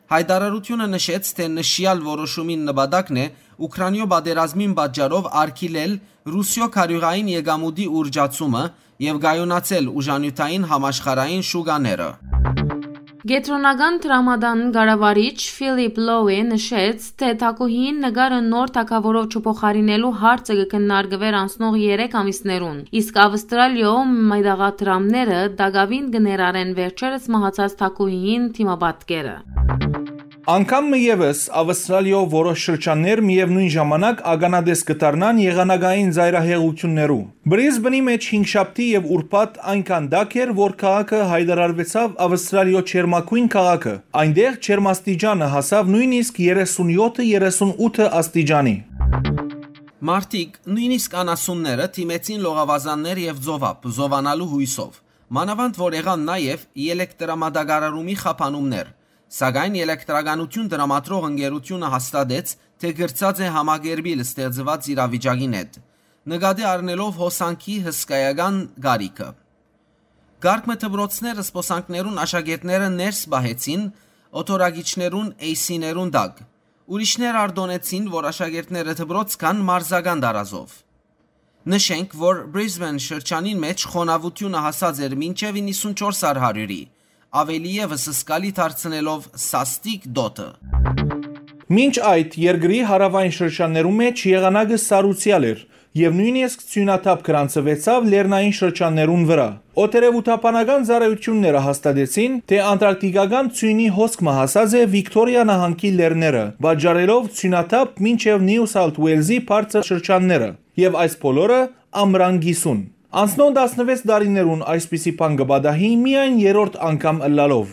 Յայտարարութիւնը նշեց, թէ նշեալ որոշումին նպատակն է Ուքրանիոյ պատերազմին պատճառով արգիլել Ռուսիոյ քարիւղային եկամուտի ուռճացումը եւ կայունացնել ուժանիւթային համաշխարհային շուկաները։ Կեդրոնական դրամատան կառավարիչ Ֆիլիպ Լոուի նշեց, թէ թագուհիին նկարը նոր թագաւորով չփոխարինելու հարցը կը քննարկուէր անցնող երեք ամիսներուն, իսկ Ավստրալիոյ մետաղադրամները տակաւին կը ներառեն վերջերս մահացած թագուհիին դիմապատկերը։ Անգամ մը եւս Ավստրալիոյ որոշ շրջաններ միեւնոյն ժամանակ ականատես կը դառնան եղանակային ծայրահեղութիւններու։ Բրիզբենի մէջ հինգշաբթի եւ ուրբաթ այնքան տաք էր, որ քաղաքը յայտարարուեցաւ Ավստրալիոյ ջերմագոյն քաղաքը։ Այնտեղ ջերմաստիճանը հասաւ նոյնիսկ երեսունյոթը երեսունութը աստիճանի։ Մարդիկ, նոյնիսկ անասունները, դիմեցին լողավազաններ եւ ծովափ՝ զովանալու յոյսով։ Մանաւանդ որ եղան նաեւ ելեկտրամատակարարումի խափանումներ, սակայն ելեկտրականութիւն տրամադրող ընկերութիւնը հաստատեց, թէ կրցած է համակերպիլ ստեղծուած իրավիճակին հետ, նկատի առնելով հոսանքի հսկայական կարիքը։ Կարգ մը դպրոցներ զբօսանքներուն աշակերտները ներս պահեցին օթորակիչներուն էյսիներուն տակ։ Ուրիշներ արտօնեցին, որ աշակերտները դպրոց գան մարզական տարազով։ Նշենք, որ Բրիզբեն շրջանին մէջ խոնաւութիւնը հասած էր մինչեւ իննսունչորս առ հարիւրի, աւելի եւս զգալի դարձնելով սաստիկ դօթը։ Մինչ այդ, երկրի հարաւային շրջաններու մէջ եղանակը սառուցեալ էր եւ նոյնիսկ ձիւնաթափ գրանցուեցաւ լեռնային շրջաններուն վրայ։ Օդերեւութաբանական ծառայութիւնները հաստատեցին, թէ անտարկտիկական ձիւնի հոսք մը հասած է Վիկթորիա նահանգի լեռները, պատճառելով ձիւնաթափ մինչեւ Նիու Սաութ Ուէյլզի բարձր շրջանները, եւ այս բոլորը ամրան կիսուն։ Անցնող տասնվեց տարիներուն այսպիսի բան կը պատահի միայն երրորդ անգամ ըլլալով։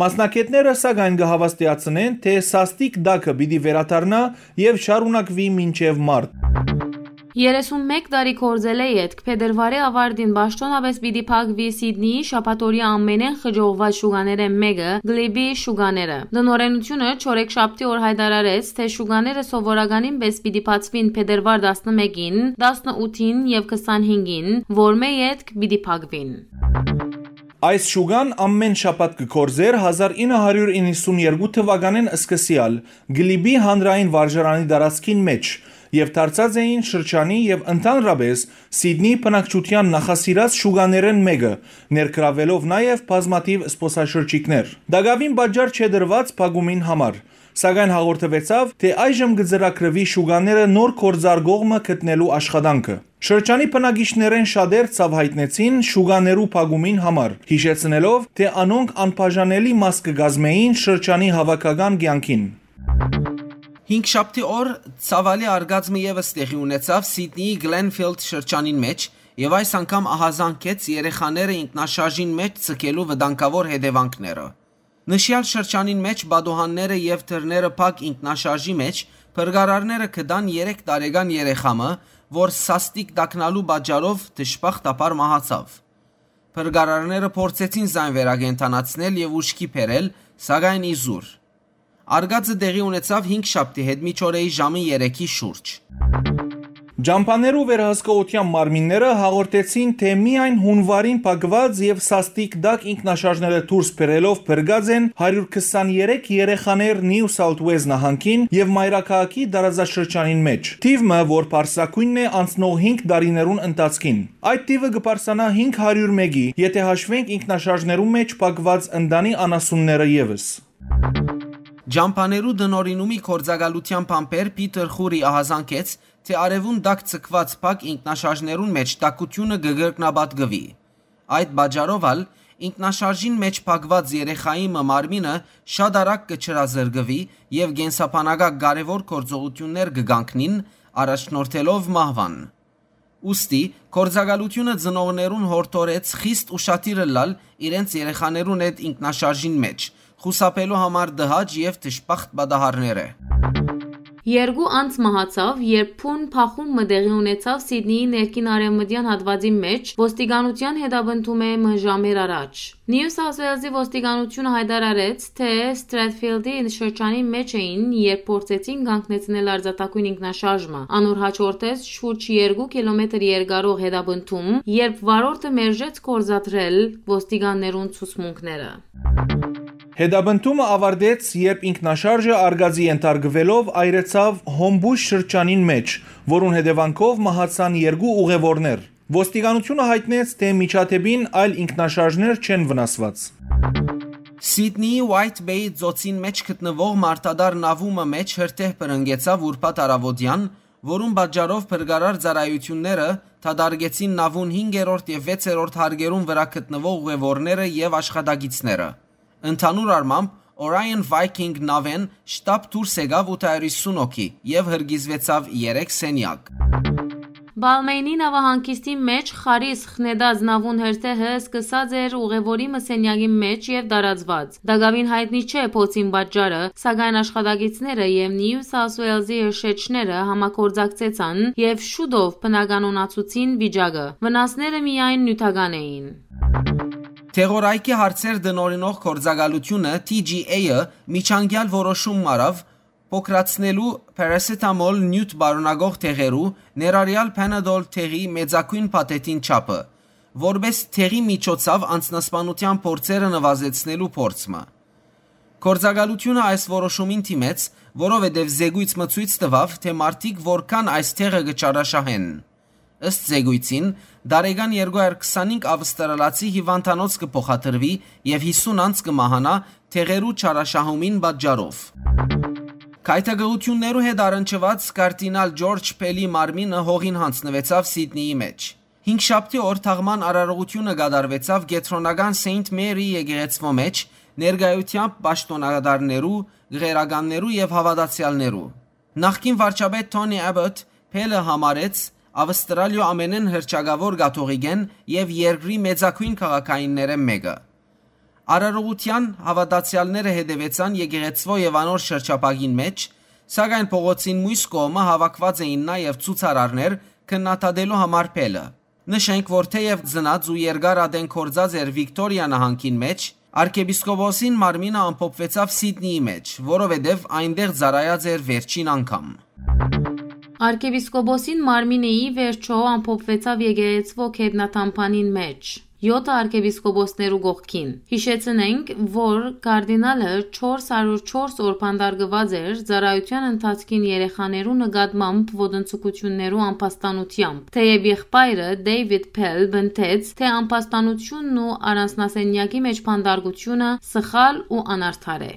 Մասնագէտները, սակայն, կը հաւաստիացնեն, թէ սաստիկ տակը պիտի վերադառնայ եւ շարունակուի մինչեւ մարտ։ Երեսունմեկ տարի գործելէ ետք, փետրուարի աւարտին պաշտօնապէս պիտի փակուի Սիդնիի շաբաթօրեայ ամենէն խճողուած շուկաներէն մէկը՝ Գլիբի շուկաները։ Տնօրէնութիւնը չորեքշաբթի օր յայտարարեց, թէ շուկաները սովորականին պէս պիտի բացուին փետրուար տասնմէկին, տասնութին եւ քսանհինգին, որմէ ետք պիտի փակուին։ Այս շուկան ամէն շաբաթ կը գործէր հազար ինը հարիւր իննսունյոթ թուականէն սկսեալ Գլիբի հանրային վարժարանի տարածքին մէջ, եւ դարձած էին շրջանի եւ ընդհանրապէս Սիդնի բնակչութեան նախասիրած շուկաներէն մէկը, ներգրաւելով նաեւ բազմաթիւ զբօսաշրջիկներ։ Տակաւին պատճառ չէ տրուած փակումին համար, սակայն հաղորդուեցաւ, թէ այժմ կը ծրագրուի շուկաները նոր գործարկող մը գտնելու աշխատանքը։ Շրջանի բնակիչներէն շատեր ցաւ յայտնեցին շուկաներու փակումին համար, յիշեցնելով, թէ անոնք անբաժանելի մաս կը կազմէին շրջանի հաւաքական կեանքին։ Հինգշաբթի օր ցաւալի արկած մը եւս տեղի ունեցաւ Սիդնիի Գլենֆիլդ շրջանին մէջ եւ այս անգամ ահազանգեց երեխաները ինքնաշարժին մէջ ձգելու վտանգաւոր հետեւանքները։ Նշեալ շրջանին մէջ պատուհանները եւ դռները փակ ինքնաշարժի մէջ փրկարարները գտան երեք տարեկան երեխայ մը, որ սաստիկ տակնալու պատճառով դժբախտաբար մահացաւ։ Փրկարարները փորձեցին զայն վերակենդանացնել եւ ուշքի բերել, սակայն իզուր։ Արկածը տեղի ունեցաւ հինգշաբթի հետմիջօրեի ժամը երեքի շուրջ։ Ճամբաներու վերահսկողութեան մարմինները հաղորդեցին, թէ միայն յունուարին փակուած եւ սաստիկ տակ ինքնաշարժները դուրս բերելով փրկած են հարիւր քսաներեք երեխաներ Նիու Սաութ Ուելզ նահանգին եւ մայրաքաղաքի տարածաշրջանին մէջ։ Թիւ մը, որ բարձրագոյնն է անցնող հինգ տարիներուն ընթացքին։ Այդ թիւը կը բարձրանայ հինգ հարիւր մէկի, եթէ հաշուենք ինքնաշարժներու մէջ փակուած ընտանի անասունները եւս։ Ճամբաներու տնօրինումի գործակալութեան բանբեր Փիթեր Խուրի ահազանգեց, թէ արեւուն տակ ձգուած փակ ինքնաշարժներուն մէջ տաքութիւնը կը կրկնապատկուի։ Այդ պատճառով ալ ինքնաշարժին մէջ փակուած երեխայի մը մարմինը շատ արագ կը չրազրկուի եւ կենսաբանակայ կարեւոր գործողութիւններ կը կանգնին, առաջնորդելով մահուան։ Ուստի, գործակալութիւնը ծնողներուն յորդորեց խիստ ուշադիր ըլլալ իրենց երեխաներուն հետ ինքնաշարժին մէջ, խուսափելու համար տհաճ եւ դժբախտ պատահարները։ Երկու անձ մահացաւ, երբ բուն բախում մը տեղի ունեցաւ Սիդնիի ներքին արեւմտեան հատուածի մէջ, ոստիկանութեան հետապնդում է մը ժամեր առաջ։ Նիու Սաութ Ուելզի ոստիկանութիւնը յայտարարեց, թէ Ստրեթֆիլդի շրջանի մէջ էին, երբ փորձեցին կանգնեցնել արձանագոյն ինքնաշարժ մը։ Անոր յաջորդեց շուրջ երկու կիլոմետր երկարող հետապնդում, երբ վարորդը մերժեց գործադրել ոստիկաններուն ցուցմունքները։ Հետապնդումը ավարտեց, երբ ինքնաշարժը արգածի ենթարկուելով այրեցաւ Հոմբուշ շրջանին մէջ, որուն հետեւանքով մահացան երկու ուղեւորներ։ Ոստիկանութիւնը յայտնեց, թէ միջադէպին այլ ինքնաշարժներ չեն վնասուած։ Սիդնիի White Bay ծոցին մէջ գտնուող մարդատար նաւումը մէջ հրդեհ բռնկեցաւ ուրբաթ առաւօտեան, որուն պատճառով փրկարար ծառայութիւնները դատարկեցին նաւուն հինգերորդ եւ վեցերորդ հարկերուն վրայ գտնուող ուղեւորները եւ աշխատակիցները։ Ընդհանուր առմամբ, Orion Viking նաւէն շտապ դուրս եկաւ ութ հարիւր հիսուն հոգի եւ հրկիզուեցաւ երեք սենեակ։ Բալմեյնի նաւահանգիստի մէջ խարիս խնետած նաւուն հրդեհը սկսած էր ուղեւորի մը սենյակի մէջ եւ տարածուած։ Տակաւին յայտնի չէ փոցին պատճառը, սակայն աշխատակիցները եւ Նիու Սաութ Ուելզի հրշեջները համագործակցեցան եւ շուտով բնականոնացուցին վիճակը։ Վնասները միայն նիւթական էին։ Թեղորայքի հարցեր տնօրինող գործակալութիւնը T G A-ը միջանկեալ որոշում մը առաւ փոքրացնելու paracetamol նիւթ պարունակող թեղերու, ներառեալ Panadol թեղի մեծագոյն փաթեթին չափը, որպէս թեղի միջոցաւ անձնասպանութեան փորձերը նուազեցնելու փորձ մը։ Գործակալութիւնը այս որոշումին դիմեց, որովհետեւ զեկոյց մը ցոյց տուաւ, թէ մարդիկ որքան այս թեղը կը չարաշահեն։ Ըստ զեկոյցին, տարեկան երկու հազար քսանհինգ ավստրալացի հիւանդանոց կը փոխադրուի եւ հիսուն անձ կը մահանայ թեղերու չարաշահումին պատճառով։ Գայթակղութիւններու հետ առնչուած կարդինալ Ջորջ Փելի մարմինը հողին յանձնուեցաւ Սիդնիի մէջ։ Հինգշաբթի օր թաղման արարողութիւնը կատարուեցաւ կեդրոնական Սեյնթ Մերի եկեղեցւոյ մէջ, ներկայութեամբ պաշտօնակատարներու, գղերականներու եւ հաւատացեալներու։ Նախկին վարչապետ Թոնի Աբոթ Փելը համարեց Ավստրալիոյ ամենէն հռչակաւոր կաթողիկէն եւ երկրի մեծագոյն քաղաքայիններէն մէկը։ Արարողութեան հաւատացեալները հետեւեցան եկեղեցւոյ եւ անոր շրջափակին մէջ, սակայն փողոցին միւս կողմը հաւաքուած էին նաեւ ցուցարարներ քննադատելու համար Փելը։ Նշենք, որ թէեւ ծնած ու երկար ատեն կորձած էր Վիկտորիա նահանգին մէջ, արքեպիսկոպոսին մարմինը ամփոփուեցաւ Սիդնիի մէջ, որովհետեւ այնտեղ ծառայած էր վերջին անգամ։ Արքեպիսկոպոսին մարմինը ի վերջոյ ամփոփուեցաւ եկեղեցւոյ գետնատամբանին մէջ, եօթը արքեպիսկոպոսներու կողքին։ Յիշեցնենք, որ կարդինալը չորս հարիւր չորս օր բանտարկուած էր ծառայութեան ընթացքին երեխաներու նկատմամբ ոտնձգութիւններու ամբաստանութեամբ, թէեւ եղբայրը՝ Դեյվիդ Փել, պնդեց, թէ ամբաստանութիւնն ու առանձնասենեակի մէջ բանտարկութիւնը սխալ ու անարդար է։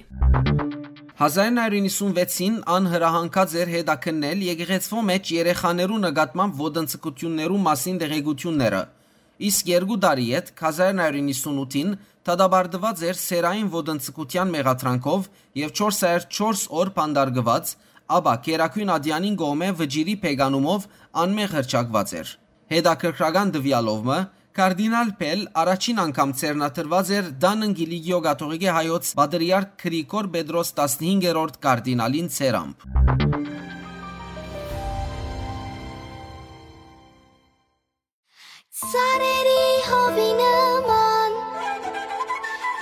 Հազար նոյ հարիւր իննսունվեցին ան հրահանգած էր հետաքննել եկեղեցւոյ մէջ երեխաներու նկատմամբ ոտնձգութիւններու մասին տեղեկութիւնները, իսկ երկու տարի ետք, հազար նոյ հարիւր իննսունութին, դատապարտուած էր սեռային ոտնձգութեան մեղադրանքով եւ չորս հարիւր չորս օր բանտարկուած, ապա Գերագոյն ատեանին կողմէ վճիռի բեկանումով անմեղ հռչակուած էր։ Հետաքրքրական տուեալով մը, կարդինալ Փել առաջին անգամ ձեռնադրուած էր Դանն Կիլիկիոյ կաթողիկէ հայոց պատրիարք Գրիգոր Պետրոս տասնհինգերորդ կարդինալին ձեռամբ։ Ծառերի հովի նման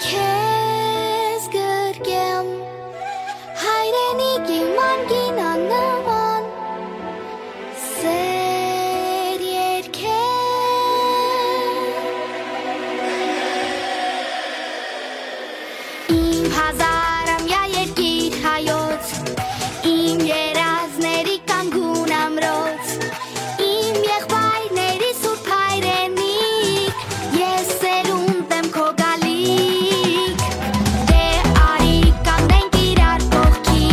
քեզ գրկեմ, հայրենիքի մանկին աննման, սեր Ազարամյա երկիր հայոց, իմ երազների կանգուն ամրոց, իմ եղբայրների սուրբ հայրենիք, ես սերունդ եմ քո գալիք։ Դե արի կանգնենք իրար կողքի,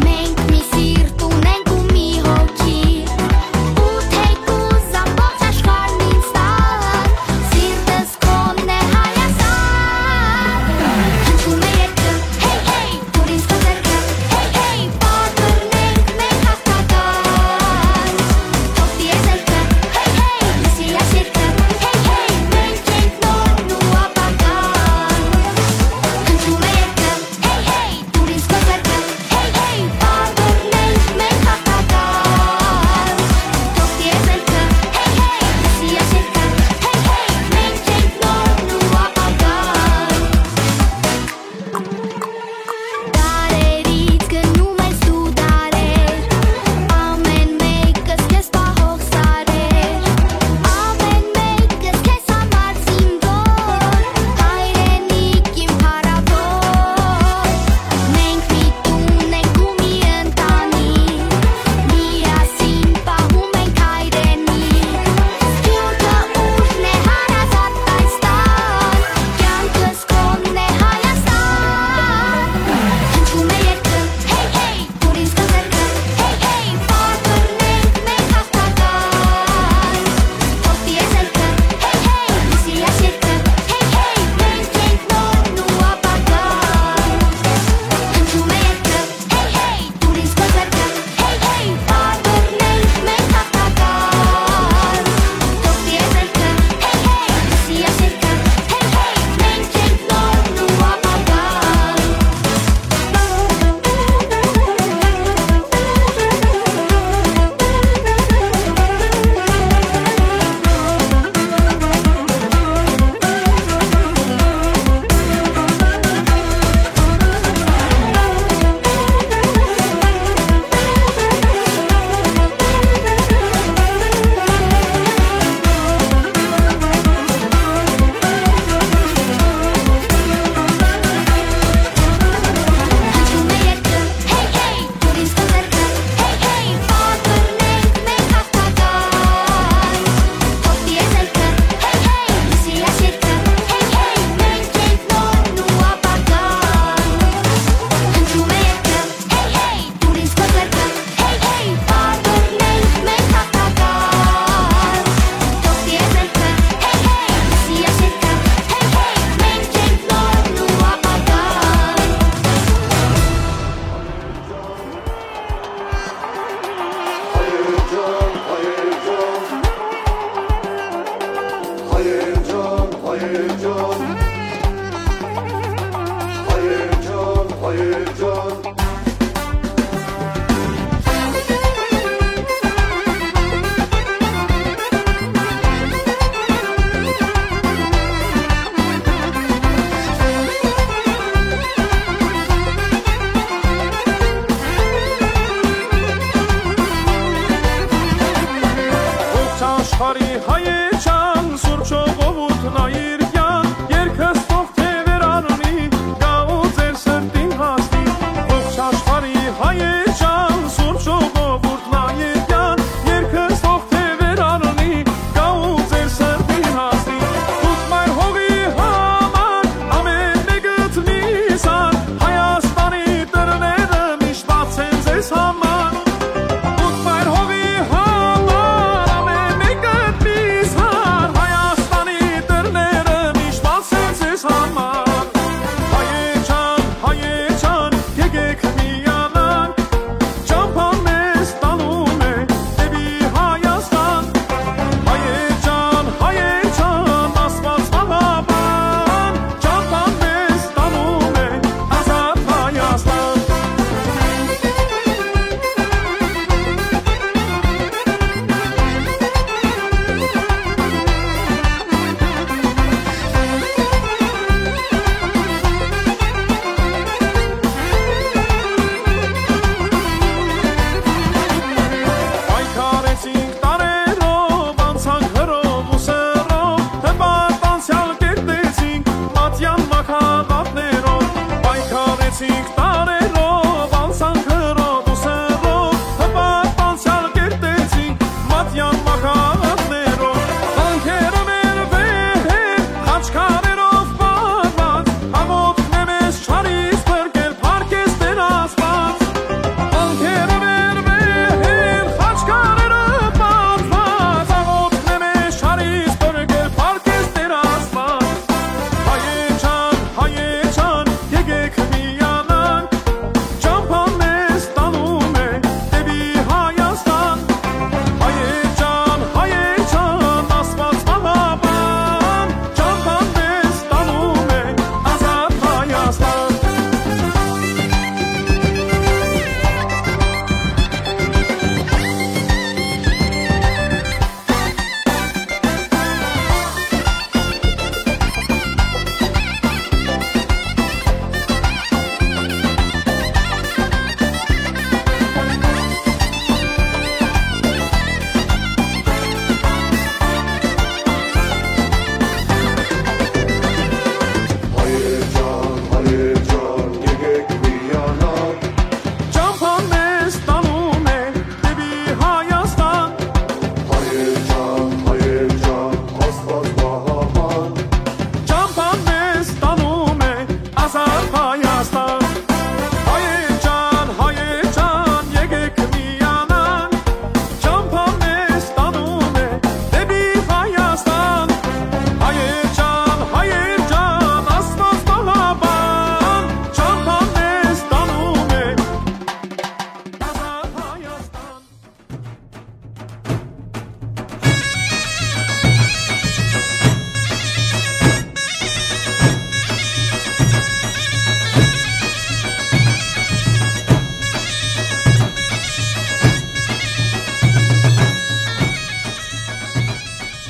մենք մի սիրտ ունենք ու մի հոգի, ու թեկուզ ամբողջ աշխարհն ինձ տան, սիրտս քոնն է Հայաստան։ Հնչում է երկը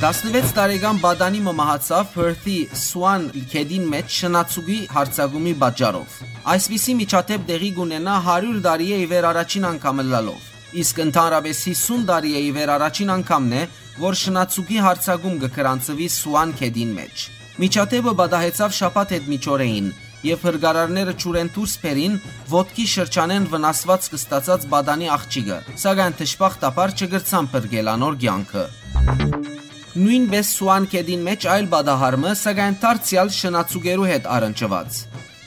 Տասնվեց տարեկան պատանի մը մահացաւ Perth-ի Swan գետին մէջ շնացուկի յարձակումի պատճառով։ Այսպիսի միջադէպ տեղի կ'ունենայ հարիւր տարիէ ի վեր առաջին անգամ ըլլալով, իսկ ընդհանրապէս յիսուն տարիէ ի վեր առաջին անգամն է, որ շնացուկի յարձակում կը գրանցուի Swan գետին մէջ։ Միջադէպը պատահեցաւ շաբաթ յետմիջօրեին, եւ հրկարարները ջուրէն դուրս բերին ոտքի շրջանէն վնասուածք ստացած պատանի աղջիկը, սակայն դժբախտաբար չկրցան փրկել անոր կեանքը։ Նոյնպէս Swan գետին մէջ այլ պատահար մը, սակայն դարձեալ շնացուկերու հետ առնչուած։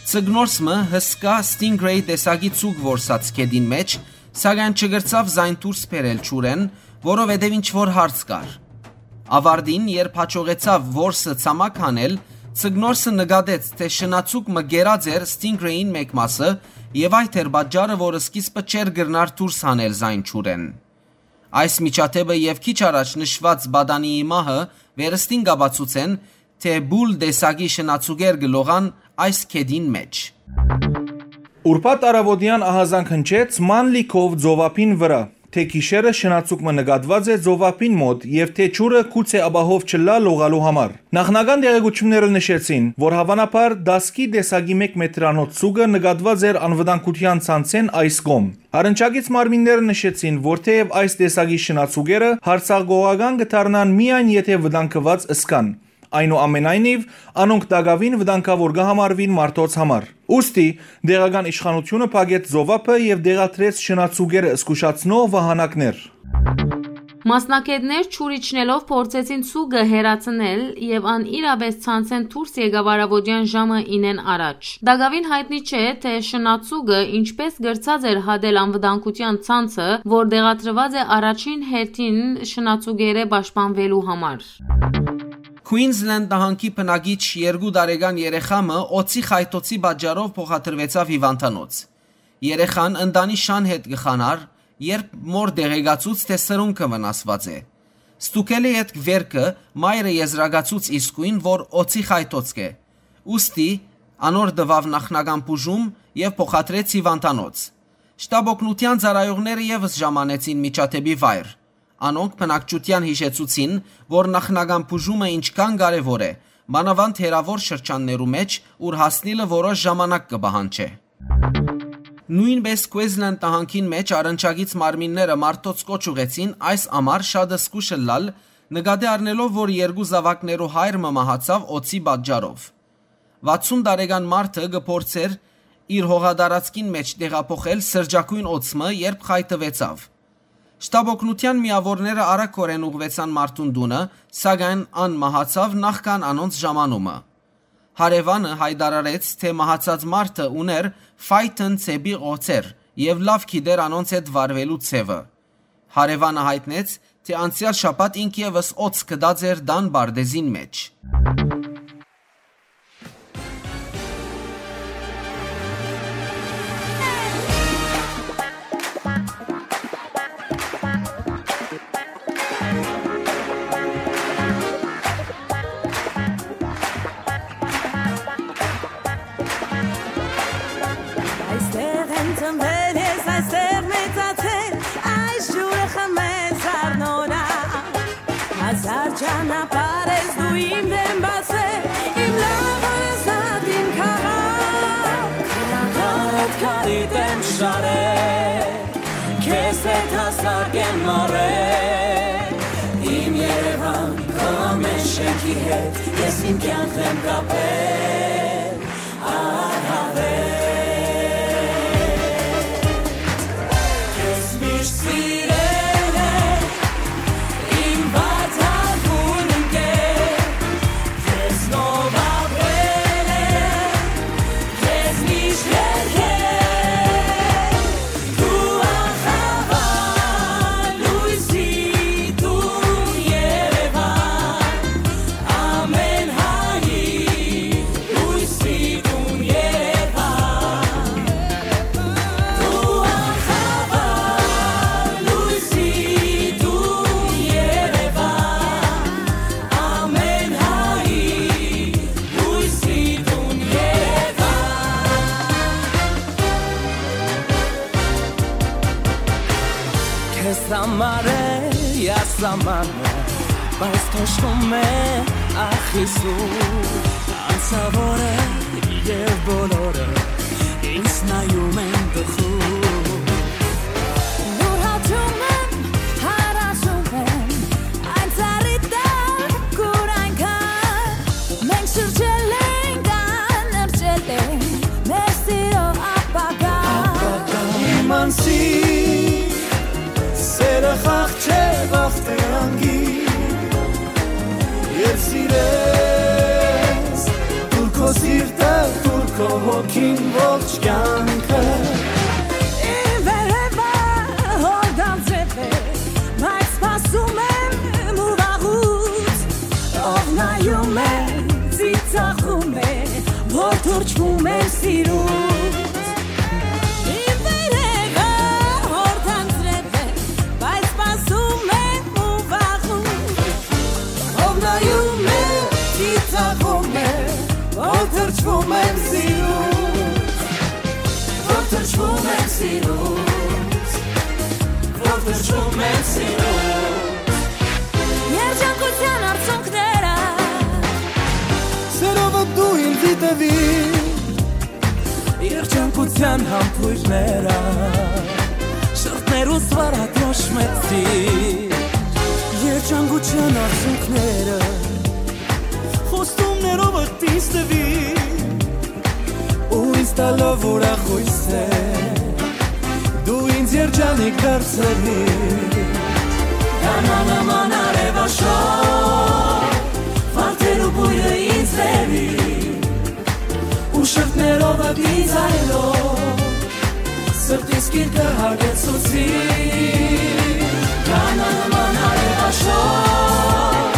Ձկնորս մը հսկայ Stingray տեսակի ձուկ որսաց գետին մէջ, սակայն չկրցաւ զայն դուրս բերել ջուրէն, որովհետեւ ինչ որ հարց կար։ Աւարտին, երբ յաջողեցաւ որսը ցամաք հանել, ձկնորսը նկատեց, թէ շնացուկ մը կերած էր Stingray-ին մէկ մասը, եւ այդ էր պատճառը, որ սկիզբը չէր կրնար դուրս հանել զայն ջուրէն։ Այս միջադէպը եւ քիչ առաջ նշուած պատանիի մահը վերստին կ'ապացուցեն, թէ բուլ տեսակի շնացուկեր կը լողան այս գետին մէջ։ Ուրբաթ առաւօտեան ահազանգ հնչեց Manly Cove ծովափին վրայ, թէ գիշերը շնացուկ մը նկատուած է ծովափին մօտ եւ թէ ջուրը գուցէ ապահով չըլլայ լողալու համար։ Նախնական տեղեկութիւնները նշեցին, որ հաւանաբար դասկի տեսակի մէկ մետրանոց ձուկը նկատուած էր անվտանգութեան ցանցէն այս կողմ։ Առնչակից մարմինները նշեցին, որ թէեւ այս տեսակի շնացուկերը յարձակողական կը դառնան միայն եթէ վտանգուած ըսկան։ Այնուամենայնիւ, անոնք տակաւին վտանգաւոր կը համարուին մարդոց համար։ Ուստի, տեղական իշխանութիւնը փակեց ծովափը եւ տեղադրեց շնացուկերը զգուշացնող վահանակներ։ Մասնագէտներ ջուր իջնելով փորձեցին ձուկը հեռացնել եւ ան իրապէս ցանցէն դուրս եկաւ առաւօտեան ժամը ինեն առաջ։ Տակաւին յայտնի չէ, թէ շնացուկը ինչպէս կրցած էր հատել անվտանգութեան ցանցը, որ տեղադրուած է առաջին հերթին շնացուկերէ պաշտպանուելու համար։ Queensland նահանգի բնակիչ երկու տարեկան երեխայ մը օձի խայթոցի պատճառով փոխադրուեցաւ հիւանդանոց։ Երեխան ընտանի շան հետ կը խանար, երբ մօր տեղեկացուց, թէ սրունքը վնասուած է։ Ստուգելէ ետք վերքը, մայրը եզրակացուց իսկոյն, որ օձի խայթոց կ'է։ Ուստի, անոր տուաւ նախնական բուժում եւ փոխադրեց հիւանդանոց։ Շտապօգնութեան ծառայողները եւս ժամանեցին միջադէպի վայր։ Անոնք բնակչութեան յիշեցուցին, որ նախնական բուժումը ինչքան կարեւոր է, մանաւանդ հեռաւոր շրջաններու մէջ, ուր հասնիլը որոշ ժամանակ կը պահանջէ։ Նոյնպէս Queensland նահանգին մէջ առնչակից մարմինները մարդոց կոչ ուղեցին այս ամառ շատ զգուշ ըլլալ, նկատի առնելով, որ երկու զաւակներու հայր մը մահացաւ օձի պատճառով։ Վաթսուն տարեկան մարդը կը փորձէր իր հողատարածքին մէջ տեղափոխել սրճագոյն օձ մը, երբ խայթուեցաւ։ Շտապօգնութեան միաւորները արագօրէն ուղղուեցան մարդուն տունը, սակայն ան մահացաւ նախքան անոնց ժամանումը։ Հարեւանը յայտարարեց, թէ մահացած մարդը ունէր Phaeton ծեփի օձեր եւ լաւ գիտէր անոնց հետ վարուելու ձեւը։ Հարեւանը յայտնեց, թէ անցեալ շաբաթ ինք եւս օձ գտած էր տան պարտէզին մէջ։ Այստեղ եմ ծնվել ես, այստեղ մեծացել, այս ջուրը խմել զարնորայ։ Հազար ճանապարհ ես դու իմ դեմ բացել, իմ լաւոր ազատ իմ քաղաք։ Քարդ քարիդ եմ շարել, քեզ հետ հասակ եմ մառել, իմ Երևան, քո ամեն շենքի հետ ես իմ կյանքն եմ կապել։ Քեզ համար է ասամանը, Բայց թոշկում է, ախ, Հիսուս, անցաւորը եւ բոլորը ինձ նայում են տխուր։ Յուրհաճում եմ, հարաճում եմ, այն ծառի տակ, ուր այնքան մենք շրջել ենք անըրջել է մեր սիրո ապագան։ Իմ անսի սերը խաղ չէ, վախ թե անգիր, եւ սիրես, տուր քո սիրտը, տուր քո հոգին, ողջ կյանքը։ Իմ վերևը հորդան ձեւ է, բայց սպասում եմ ու վաղուց, ով նայում է, ծիծաղում է, որ թռչվում եմ սիրուց։ Իմ վերևը հորդան ձեւ է, բայց սպասում եմ ու վաղուց, ով նայում է, ծիծաղում է, որ թռչվում եմ սիրուց, որ թռչվում եմ սիրուց, որ թռչվում եմ սիրուց։ Երջանկութեան արցունքները, սերովը դու ինձի տուիր, երջանկութեան համբոյրները, շրթներուս վարատրոշմեցի։ Երջանկութեան արցունքները խոստումներովդ ինձ տուիր, ու ինձ տալով ուրախոյս է, դու ինձ երջանիկ դարձրիր։ Կանանման արեւաշոր, վարդերու բոյրը ինձ բերի, ու շրթներովդ ինձ այլով, սրտիս գիրկը հագեցուցի։ Կանանման արեւաշոր,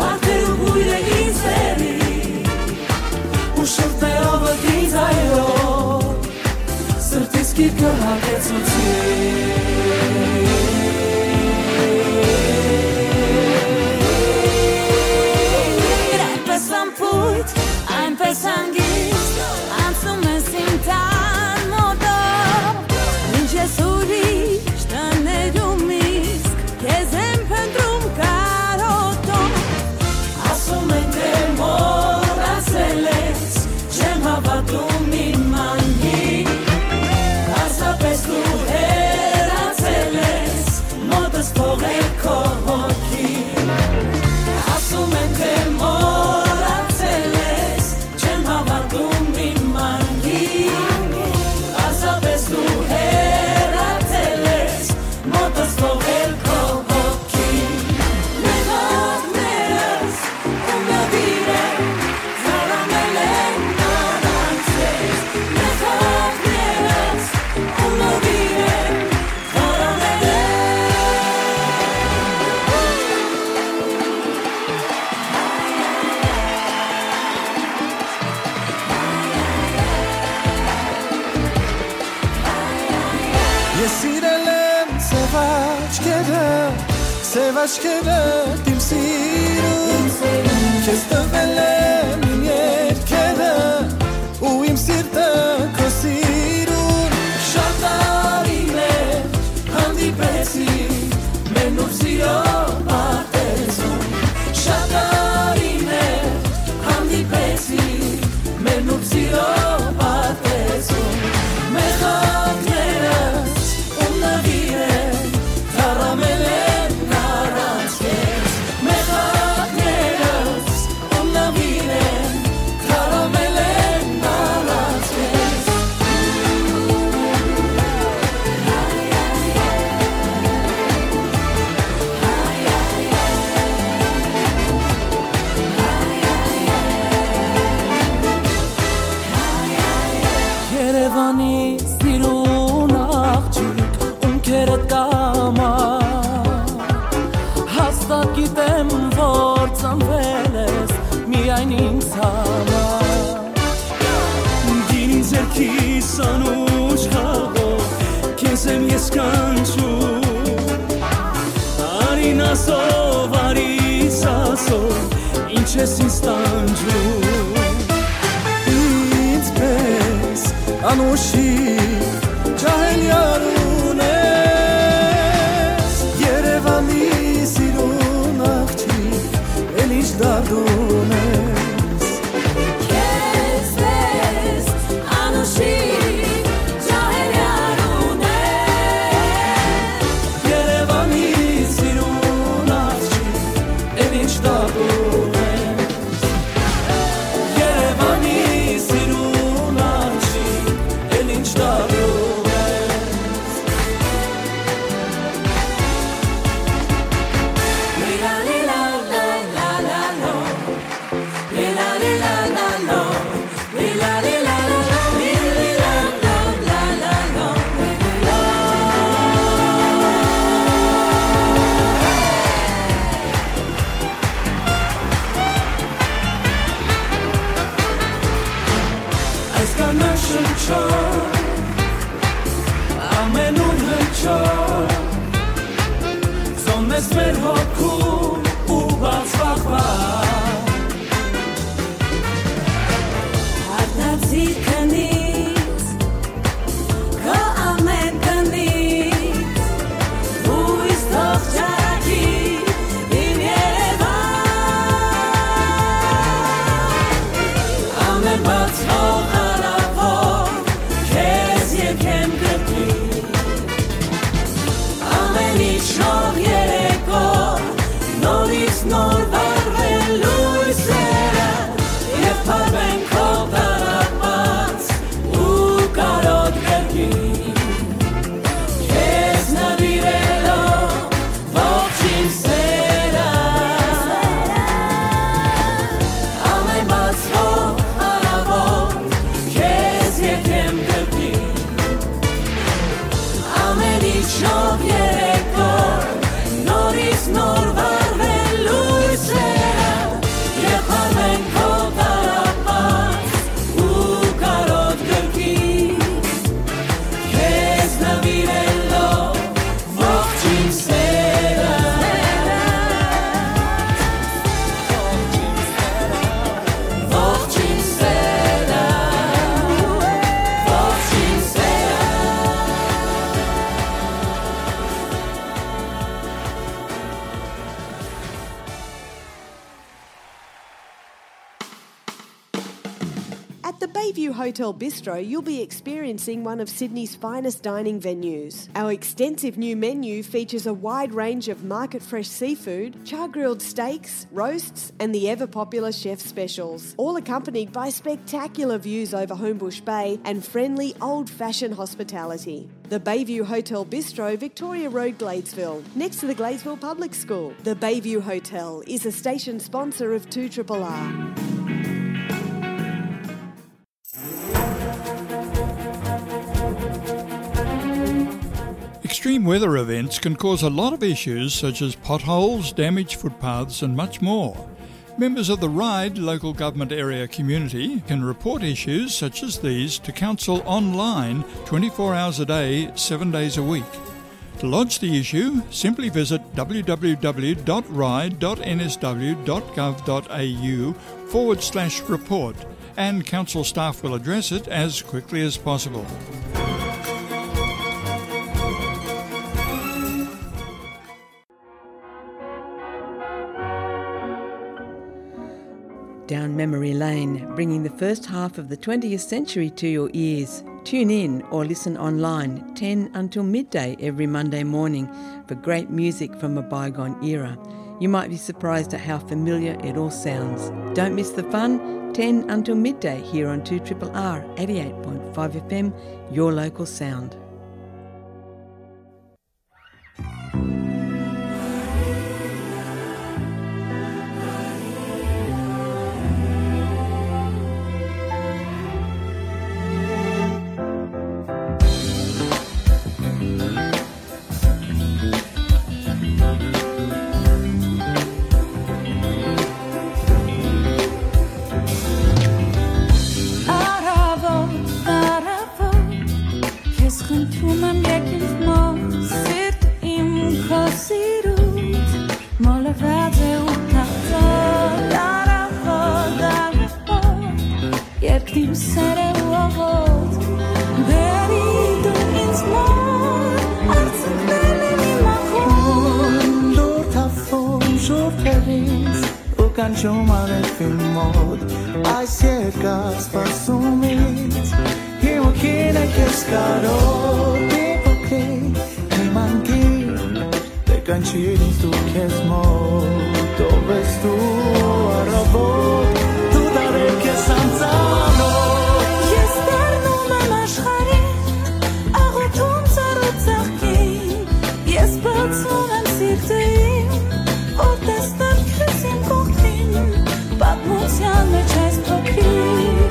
վարդերու բոյրը ինձ բերի, ու շրթներովդ ինձ այլով, սրտիս գիրկը հագեցուցի։ Այնպես անփոյթ, այնպես հանգիստ անցնում ես իմ տան մոտով, ինչ ես ուրիշ տներում, իսկ քեզ եմ փնտռում կարոտով։ Ասում են, թե մոռացել ես, չեմ հավատում իմ անգին, պարզապէս դու հեռացել ես, մոտս թողել քո հոգին։ Ասում են, թե մոռացել ես, չեմ հավատում իմ անգին, պարզապէս դու հեռացել ես, մոտս թողել քո հոգին։ Մեղքներս ու նվիրեմ, թառամել են առանց քեզ։ Մեղքներս ու նվիրեմ, թառամել են։ Ես սիրել եմ սեւ աչքերը, սեւ աչքերը իմ սիրուն, քեզ տվել եմ իմ երկերը, ու իմ սիրտը քո սիրուն։ Շատ տարի մեր հանդիպեցի մեր նոր սիրո պատերազմում, շատ տարի մեր հանդիպեցի մեր նոր սիրո պատերազմում։ Մեղքներս ու նվիրեմ, թառամել են առանց քեզ։ Մեղքներս ու նվիրեմ, թառամել են առանց քեզ։ Երևանի սիրուն աղջիկ, ում քերդ կամա, հաստատ գիտեմ, որ ծնվել ես միայն ինձ համար։ Գինին ձեռքիս անուշ խաղով, քեզ եմ ես կանչում։ Արին ասով, արիս ասով, ինչ ես ինձ տանջում։ Ինձ պես անուշի ջահել յարուն ես, Երևանի սիրուն աղջիկ։ դարդում ես։ Քեզ պես անուշիկ ջահեր յարուն է, Երևանի սիրուն աղջիկ, էլ ինչ դարդում ես։ Երևանի սիրուն աղջիկ, էլ ինչ դարդում ես։ Այսքան շնչող, ամենուն հնչող, զոնն ես մեր հոգում ու բաց վախվա։ Արտացի քնից, քո ամեն քնից, հույս թող ճառագի իմ Երևան։ Ամեն բացվող արարքով քեզ եկեմ կրկին։ Ամեն ինչ նոր երեկո, նորից նոր վառվեն լույսերը, եւ փարվեն քո տառապած ու կարոտ կրկին։ Քեզ նվիրելով ողջ իմ սերը, ամեն բացվող արարքով քեզ եկեմ կրկին։ Ամեն ինչ նոր երեկո, նորից նոր վառվեն լույսերը, եւ փարվեն քո տառապած ու կարոտ կրկին։ Քեզ նվիրելով ողջ իմ սերը, ողջ իմ սերը, ողջ իմ սերը։ At the Bayview Hotel Bistro, you'll be experiencing one of Sydney's finest dining venues. Our extensive new menu features a wide range of market fresh seafood, char grilled steaks, roasts, and the ever popular chef specials, all accompanied by spectacular views over Homebush Bay and friendly old fashioned hospitality. The Bayview Hotel Bistro, Victoria Road, Gladesville, next to the Gladesville Public School. The Bayview Hotel is a station sponsor of two triple R. Extreme weather events can cause a lot of issues such as potholes, damaged footpaths, and much more. Members of the RIDE local government area community can report issues such as these to council online twenty-four hours a day, seven days a week. To lodge the issue, simply visit w w w dot ride dot n s w dot gov dot a u forward slash report, and council staff will address it as quickly as possible. Down memory lane, bringing the first half of the twentieth century to your ears. Tune in or listen online ten until midday every Monday morning for great music from a bygone era. You might be surprised at how familiar it all sounds. Don't miss the fun, ten until midday here on two triple R eighty-eight point five F M, your local sound. Արաւոտ, արաւոտ, քեզ խնդրում եմ, եկիր մոտ, սիրտ իմ քո սիրուց մոլորված է ու թախծոտ, արաւոտ, արաւոտ, երկնիմ սերը ու աղոտ, բերի դու ինձ մոտ, արցունքներն են իմ ախոտ։ Լորդ Աթոն, ժողովուրդ, Կանչում արեւին մոտ այս երկար սպասումից, իմ հոգին է քեզ կարոտ, իմ փոքրիկ, իմ անգին, դեռ կանչիր ինձ դու քեզ մոտ, ով ես դու առավոտ, դու դարեր քեզ անծանոթ։ Ես դառնում եմ աշխարհին, աղոթում ծառու ծաղկին, ես բացում եմ սիրտը իմ, որ տեսնեմ քեզ իմ կողքին, պատմության մեջ այս փոքրիկ։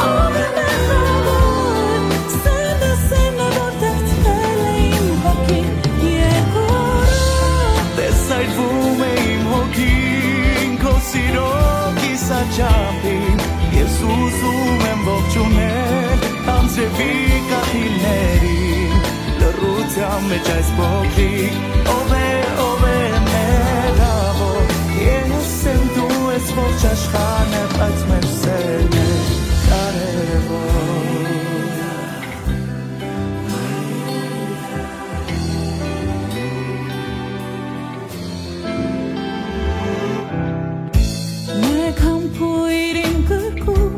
Ով է մեղավոր, սերը, սերը, որ դարձրել է իմ հոգին երկորը։ Տեսայթվում է իմ հոգին, քո սիրո կիսաչափին, ես ուզում եմ ողջունել անձրևի կաթիլներին, լռության մեջ այս փոքրիկ, ով է, ով է մեղավոր, ես եմ դու ես, ողջ աշխարհն է, բայց մեր սերն է կարևոր։ Մեկ համբույր իմ կրկում,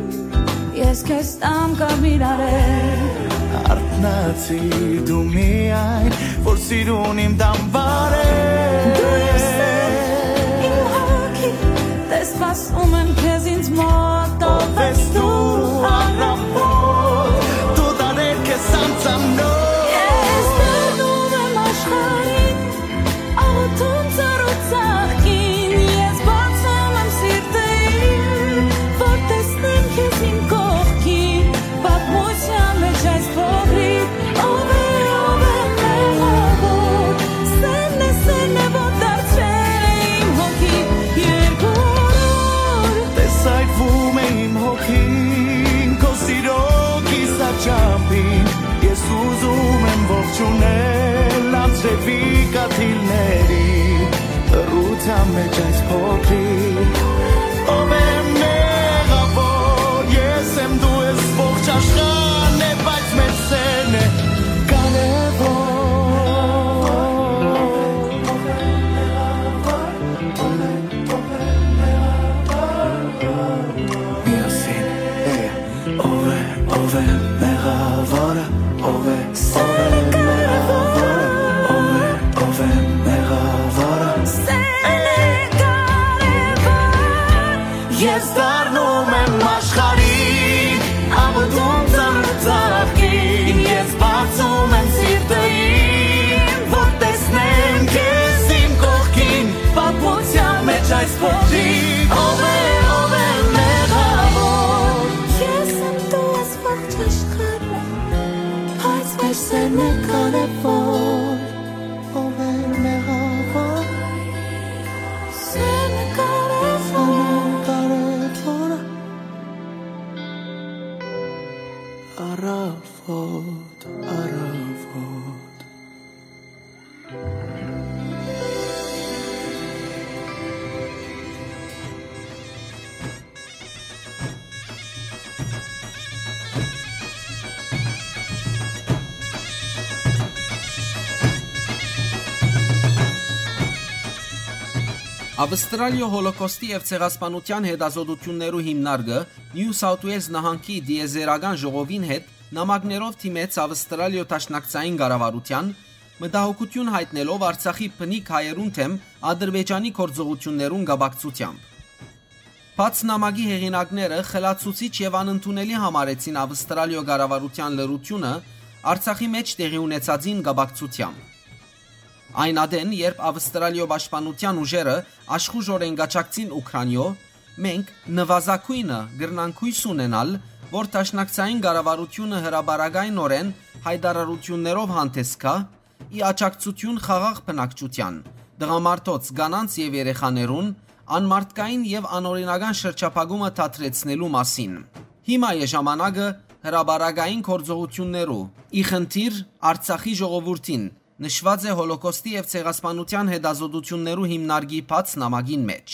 ես քեզ տամ կարմիր արեր։ Արթնացի դու միայն, որ սիրուն իմ դամբար ես։ Դու ես սեր իմ հոգի, տես սպասում եմ քեզ ինձ մոտ, ով ես դու առավոտ, դու դարեր քեզ անծանոթ։ Ես դառնում եմ աշխարհին, աղոթում ծառու ծաղկին, ես բացում եմ սիրտը իմ, որ տեսնեմ քեզ իմ կողքին, պատմության մեջ այս փոքրիկ, ով է, ով է մեղավոր, սերն է, սերն է, որ դարձրել է իմ հոգի երկորոր։ Տեսայթվում է իմ հոգին, քո սիրո կիսաչափին, ես ուզում եմ ողջունել անձրևի կաթիլների լռության մեջ այս փոքրիկ, ով է մեղավոր, ես եմ դու ես, ողջ աշխարհն է, բայց մեր սերն է կարևոր։ Միասին, hey, ով է, ով է մեղավորը, ով է, ով է մեղավորը, ով է, ով է մեղավորը։ Սերը կարևոր, ես դառնում եմ աշխարհին, աղոթում ծառու ծաղկին, ես բացում եմ սիրտը իմ, որ տեսնեմ քեզ իմ կողքին, պատմության մեջ այս փոքրիկ, ով է, ով է մեղավոր։ Ես եմ դու ես ողջ աշխարհը, բայց մեր սերն է կարևոր, ով է մեղավոր, սերն է կարևոր, կարևոր։ Առավոտ, առավոտ։ Ավստրալիոյ Հոլոքոստի եւ ցեղասպանութեան հետազոտութիւններու հիմնարկը Նիու Սաութ Ուէյլզ նահանգի տիեզերական ժողովին հետ նամակներով դիմեց Ավստրալիոյ Դաշնակցային կառավարութեան, մտահոգութիւն յայտնելով Արցախի բնիկ հայերուն դէմ Ադրբեջանի գործողութիւններուն կապակցութեամբ։ Բաց նամակի հեղինակները խլացուցիչ եւ անընդունելի համարեցին Ավստրալիոյ կառավարութեան լռութիւնը Արցախի մէջ տեղի ունեցածին կապակցութեամբ։ Այն ատեն, երբ Ավստրալիոյ պաշտպանութեան ուժերը աշխուժօրէն կ'աջակցին Ուքրանիոյ, մենք նուազագոյնը կրնանք յոյս ունենալ, որ դաշնակցային կառավարութիւնը հրապարակայնօրէն յայտարարութիւններով հանդէս գայ, ի աջակցութիւն խաղաղ բնակչութեան, տղամարդոց, կանանց եւ երեխաներուն, անմարդկային եւ անօրինական շրջափակումը դադրեցնելու մասին։ Հիմա է ժամանակը հրապարակային գործողութիւններու, ի խնդիր Արցախի ժողովուրդին, նշուած է Հոլոքոստի եւ ցեղասպանութեան հետազոտութիւններու հիմնարկի բաց նամակին մէջ։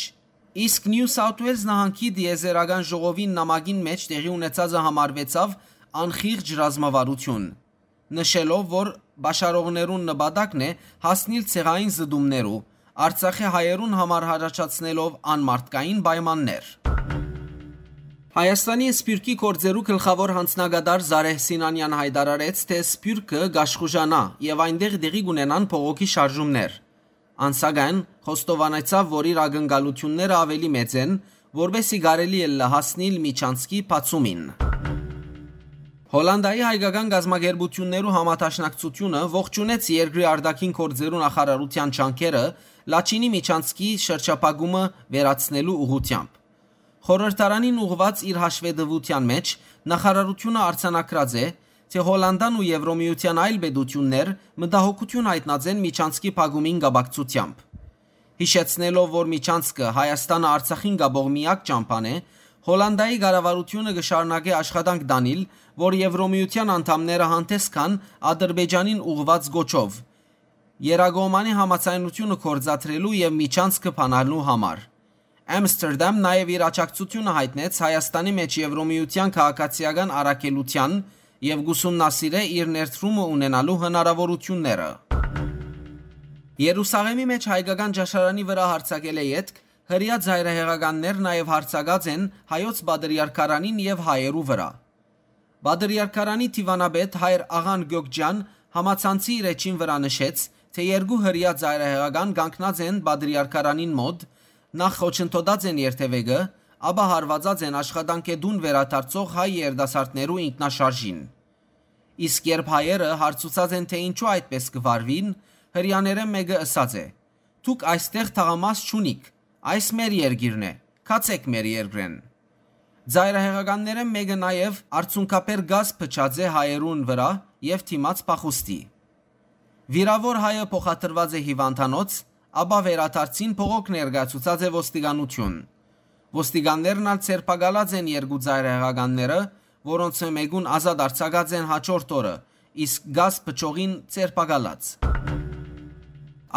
Իսկ Նիու Սաութ Ուէյլզ նահանգի տիեզերական ժողովին նամակին մէջ տեղի ունեցածը համարուեցաւ անխիղճ ռազմավարութիւն, նշելով, որ պաշարողներուն նպատակն է հասնիլ ցեղային զտումներու, Արցախի հայերուն համար յառաջացնելով անմարդկային պայմաններ։ Հայաստանի սփիւռքի գործերու գլխաւոր յանձնակատար Զարեհ Սինանեան յայտարարեց, թէ սփիւռքը կաշխուժանայ եւ այնտեղ տեղի կ'ունենան բողոքի շարժումներ։ Ան, սակայն, խոստովանեցաւ, որ իր ակնկալութիւնները աւելի մեծ են, որպէս զի կարելի ըլլայ հասնիլ միջանցքի բացումին։ Հոլանտայի հայկական կազմակերպութիւններու համադաշնակցութիւնը ողջունեց երկրի արտաքին գործերու նախարարութեան ջանքերը Լաչինի միջանցքի շրջափակումը վերացնելու ուղղութեամբ։ Խորհրդարանին ուղղուած իր հաշուետվութեան մէջ նախարարութիւնը արձանագրած է, թէ Հոլանտան ու Եվրոմիութեան այլ պետութիւններ մտահոգութիւն յայտնած են միջանցքի փակումին կապակցութեամբ։ Յիշեցնելով, որ միջանցքը Հայաստանը Արցախին կապող միակ ճամբան է, Հոլանտայի կառավարութիւնը կը շարունակէ աշխատանք տանիլ, որ Եվրոմիութեան անդամները հանդէս գան Ադրբեջանին ուղղուած կոչով, երկկողմանի համաձայնութիւնը գործադրելու եւ միջանցքը բանալու համար։ Ամստերդամ նաեւ իր աջակցութիւնը յայտնեց Հայաստանի մէջ Եվրոմիութեան քաղաքացիական առաքելութեան եւ կ'ուսումնասիրէ իր ներդրումը ունենալու հնարաւորութիւնները։ Երուսաղէմի մէջ հայկական ճաշարանի վրայ յարձակելէ ետք հրեայ ծայրահեղականներ նաեւ յարձակած են հայոց պատրիարքարանին եւ հայերու վրայ։ Պատրիարքարանի դիւանապետ հայր Աղան Գյոկճեան համացանցի իր էջին վրայ նշեց, թէ երկու հրեայ ծայրահեղական կանգնած են պատրիարքարանին մօտ, նախ խոչընդոտած են երթեւեկը, ապա հարուածած են աշխատանքէ տուն վերադարձող հայ երիտասարդներու ինքնաշարժին։ Իսկ երբ հայերը հարցուցած են, թէ ինչու այդպէս կը վարուին, հրեաներէն մէկը ըսած է. «Դուք այստեղ թաղամաս չունիք, այս մեր երկիրն է, գացէք մեր երկրէն»։ Ծայրահեղականներէն մէկը նաեւ արցունքաբեր կազ փչած է հայերուն վրայ եւ դիմած փախուստի։ Վիրաւոր հայը փոխադրուած է հիւանդանոց, ապա վերադարձին բողոք ներկայացուցած է ոստիկանութիւն։ Ոստիկաններն ալ ձերբակալած են երկու ծայրահեղականները, որոնցմէ մէկուն ազատ արձակած են հաջորդ օրը, իսկ կազ փչողին ձերբակալած։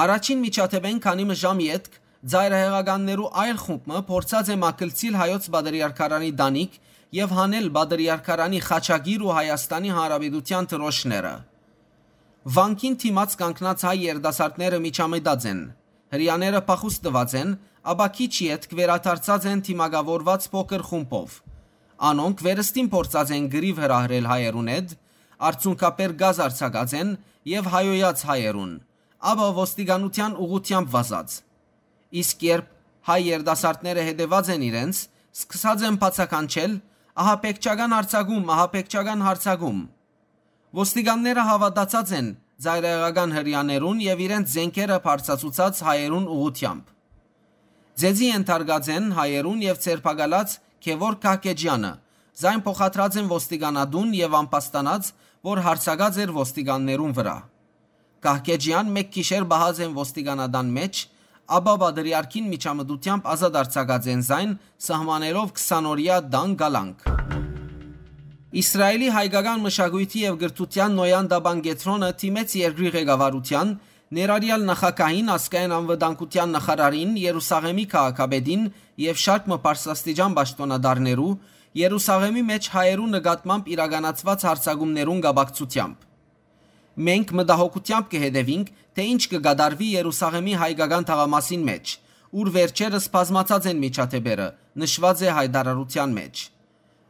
Առաջին միջադէպէն քանի մը ժամ ետք ծայրահեղականներու այլ խումբ մը փորձած է մագլցիլ հայոց պատրիարքարանի տանիք եւ հանել պատրիարքարանի խաչակիր ու Հայաստանի Հանրապետութեան դրոշները։ Վանքին դիմաց կանգնած հայ երիտասարդները միջամտած են։ Հրեաները փախուստ տուած են, ապա քիչ ետք վերադարձած են դիմակաւորուած փոքր խումբով։ Անոնք վերստին փորձած են կռիւ հրահրել հայերուն հետ, արցունքաբեր կազ արձակած են եւ հայոյած հայերուն, ապա ոստիկանութեան ուղղութեամբ վազած։ Իսկ երբ հայ երիտասարդները հետեւած են իրենց, սկսած են բացականչել. «Ահաբեկչական արձակում, ահաբեկչական արձակում»։ Ոստիկանները հաւատացած են ծայրահեղական հրեաներուն եւ իրենց զէնքերը բարձրացուցած հայերուն ուղղութեամբ։ Ձեզի ենթարկած են հայերուն եւ ձերբակալած Գեւորգ Կահկեջեանը, զայն փոխադրած են ոստիկանատուն եւ ամբաստանած, որ յարձակած էր ոստիկաններուն վրայ։ Կահկեջեան մէկ գիշեր պահած են ոստիկանատան մէջ, ապա պատրիարքին միջամտութեամբ ազատ արձակած են զայն, սահմանելով քսանօրեայ տան կալանք։ Իսրայելի հայկական մշակոյթի եւ կրթութեան Նոյան Տաբան կեդրոնը դիմեց երկրի ղեկավարութեան, ներառյալ նախագահին, ազգային անվտանգութեան նախարարին, Երուսաղէմի քաղաքապետին եւ շարք մը բարձրաստիճան պաշտօնատարներու, Երուսաղէմի մէջ հայերու նկատմամբ իրականացուած յարձակումներուն կապակցութեամբ։ «Մենք մտահոգութեամբ կը հետեւինք, թէ ինչ կը կատարուի Երուսաղէմի հայկական թաղամասին մէջ, ուր վերջերս բազմացած են միջադէպերը», նշուած է յայտարարութեան մէջ։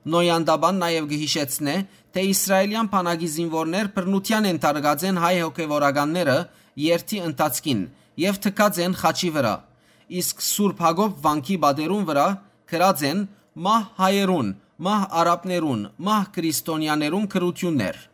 Նոյան Տաբան նաեւ կը յիշեցնէ, թէ իսրայելեան բանակի զինուորներ բռնութեան ենթարկած են հայ հոգեւորականները երթի ընթացքին եւ թքած են խաչի վրայ, իսկ Սուրբ Յակոբ վանքի պատերուն վրայ գրած են «Մահ հայերուն, մահ արաբներուն, մահ քրիստոնեաներուն» գրութիւններ։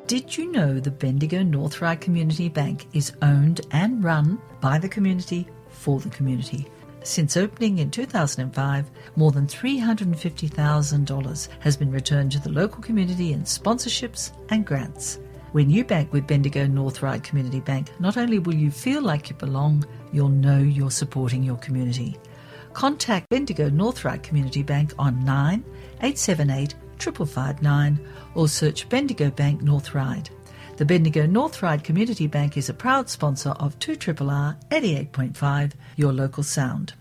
Did you know the Bendigo North Ryde Community Bank is owned and run by the community for the community? Since opening in two thousand five, more than three hundred fifty thousand dollars has been returned to the local community in sponsorships and grants. When you bank with Bendigo North Ryde Community Bank, not only will you feel like you belong, you'll know you're supporting your community. Contact Bendigo North Ryde Community Bank on nine eight seven eight triple five nine or search Bendigo Bank North Ryde. The Bendigo North Ryde Community Bank is a proud sponsor of two triple R eighty-eight point five, your local sound.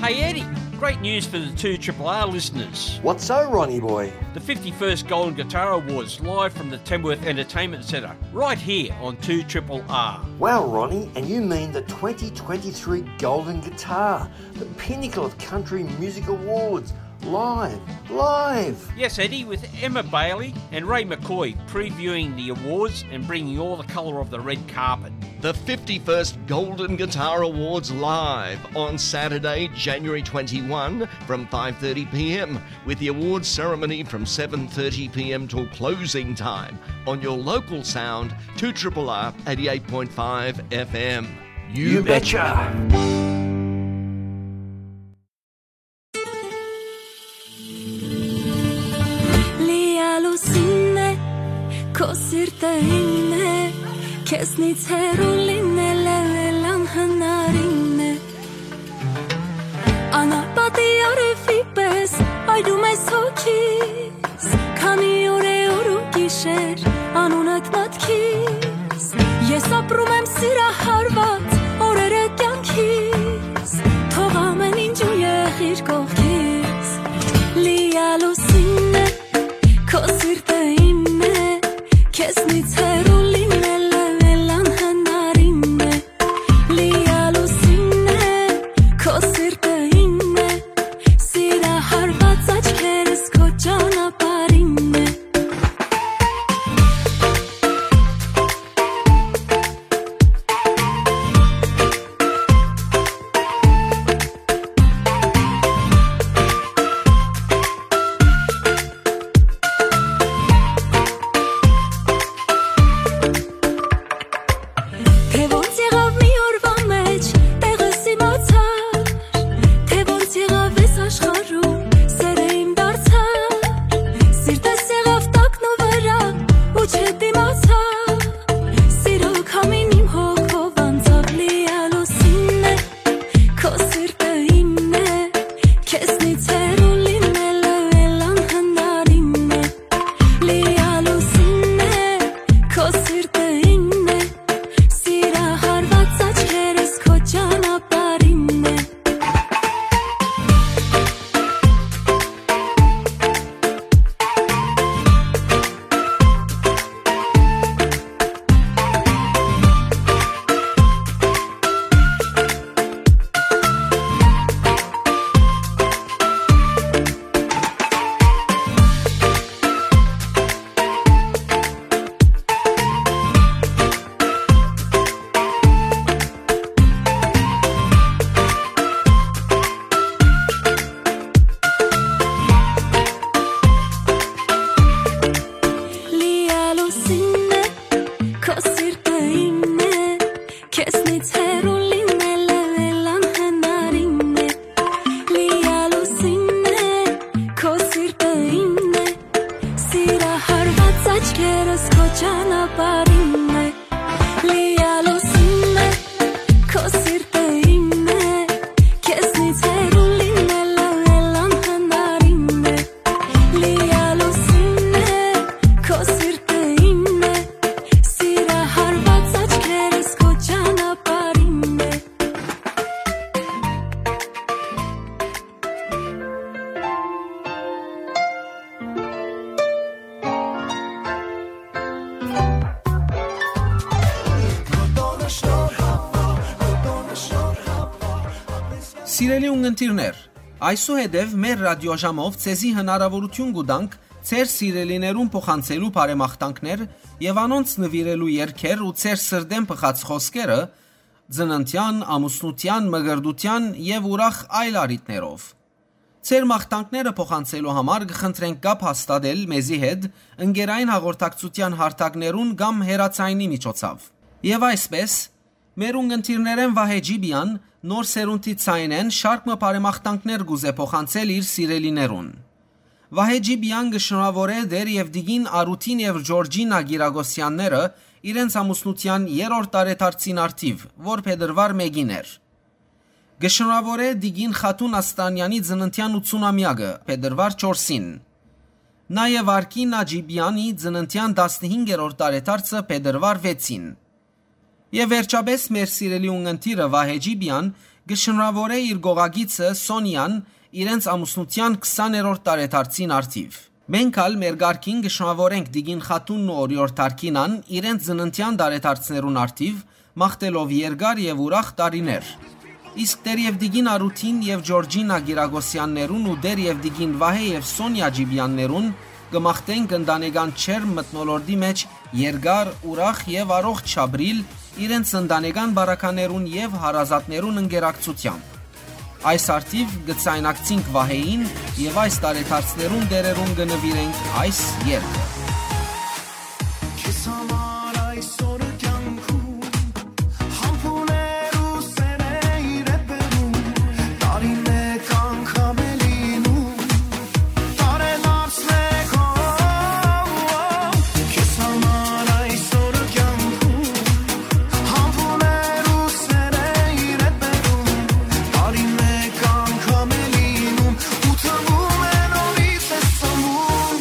Hey Eddie, great news for the two triple R listeners. What's so, Ronnie boy? The fifty-first Golden Guitar Awards live from the Tamworth Entertainment Centre, right here on two triple R. Wow, Ronnie, and you mean the twenty twenty-three Golden Guitar, the pinnacle of country music awards, live, live! Yes, Eddie, with Emma Bailey and Ray McCoy previewing the awards and bringing all the colour of the red carpet. The fifty-first Golden Guitar Awards live on Saturday, January twenty-one, from five thirty p m, with the awards ceremony from seven thirty p m till closing time on your local sound, two triple R eighty-eight point five F M. You betcha! Լիալուսինն է, քո սիրտը ինն է, քեզնից հեռու լինելը էլ անհնարինն է։ Անապատի արևի պես այրում ես հոգիս, քանի օր է օր ու գիշեր անունդ մտքիս։ Ես ապրում եմ սիրահարված օրերը կյանքիս, թող ամեն ինչ ու եղիր կողքիս։ Լիալուսինն է, քո սիրտը ինն է, քեզնից հեռու լինելը էլ անհնարինն է։ Լիալուսինն է, քո սիրտը ինն է, սիրահարված աչքերս քո ճանապարհինն է։ Թե ոնց եղավ մի օրվա մեջ, տեղս իմացար, թե ոնց եղավ այս աշխարհում, սերը իմ դարձար, սիրտս եղավ տակնուվրա ու չդիմացար, սիրո քամին իմ հոգով անցավ, լիալուսինն է, քո սիրտը ինն է, քեզնից հեռու լինելը էլ անհնարինն է։ Լիալուսինն է, քո սիրտը ինն է, սիրահարված աչքերս քո ճանապարհինն է։ Լիալուսինն է, քո սիրտը ինն է, քեզնից հեռու լինելը էլ անհնարինն է։ Լիալուսինն է, քո սիրտը ինն է, սիրահարված աչքերս քո ճանապարհինն է։ Լիալուսինն է, քո սիրտը ինն է, քեզնից հեռու լինելը էլ անհնարինն է։ Լիալուսինն է, քո սիրտը ինն է, սիրահարված աչքերս քո ճանապարհինն է։ Սիրելի ունգընտիրներ, այսուհետև մեր ռադիոժամով ձեզի հնարավորություն կու տանք ձեր սիրելիներուն փոխանցելու բարեմաղթանքներ եւ անոնց նուիրելու երգեր ու ձեր սրտէն բխած խօսքերը, ծննդեան, ամուսնութեան, մկրտութեան եւ ուրախ այլ առիթներով։ Ձեր մաղթանքները փոխանցելու համար կը խնդրենք կապ հաստատել մեզի հետ ընկերային հաղորդակցութեան հարթակներուն կամ հեռաձայնի միջոցով։ Եւ այսպես, մեր ունգընտիրներէն Վահէ Ջիպիան նոր սերունդի ձայնէն շարք մը բարեմաղթանքներ կ'ուզէ փոխանցել իր սիրելիներուն։ Վահէ Ջիպիան կը շնորհաւորէ Տէր եւ Տիկին Արութին եւ Ջորջինա Կիրակոսեանները իրենց ամուսնութեան երրորդ տարեդարձին առթիւ, որ փետրուար մէկին էր։ Կը շնորհաւորէ Տիկին Խաթուն Աստանեանի ծննդեան ութսունամեակը, փետրուար չորսին։ Նաեւ Արքինա Ջիպիանի ծննդեան տասնհինգերորդ տարեդարձը, փետրուար վեցին։ Եւ վերջապէս մեր սիրելի ունգընտիրը Վահէ Ջիպիան կը շնորհաւորէ իր կողակիցը Սոնիան իրենց ամուսնութեան քսաներորդ տարեդարձին առթիւ։ Մենք ալ մեր կարգին կը շնորհաւորենք Տիկին Խաթունն ու Օրիորդ Արքինան իրենց ծննդեան տարեդարձներուն առթիւ, մաղթելով երկար եւ ուրախ տարիներ։ Իսկ Տէր եւ Տիկին Արութին եւ Ջորջինա Կիրակոսեաններուն ու Տէր եւ Տիկին Վահէ եւ Սոնիա Ջիպիաններուն կը մաղթենք ընտանեկան ջերմ մթնոլորտի մէջ երկար, ուրախ եւ առողջ ապրիլ իրենց ընտանեկան բարականերուն եւ հարազատներուն ընկերակցութեան։ Այս առթիվ կը ձայնակցինք Վահէին եւ այս տարեդարձներուն տէրերուն կը նուիրենք այս երգը։ Քեզ համար այսօր կյանքում համբուներ ու սերեյր է բերում, տարի մեկ անգամ է լինում, տարեդարձ մեկ, օ, օ, օ, քեզ համար այսօր կյանքում համբուներ ու սերեյր է բերում, տարի մեկ անգամ է լինում, ու թվում է նորից ես ծնվում։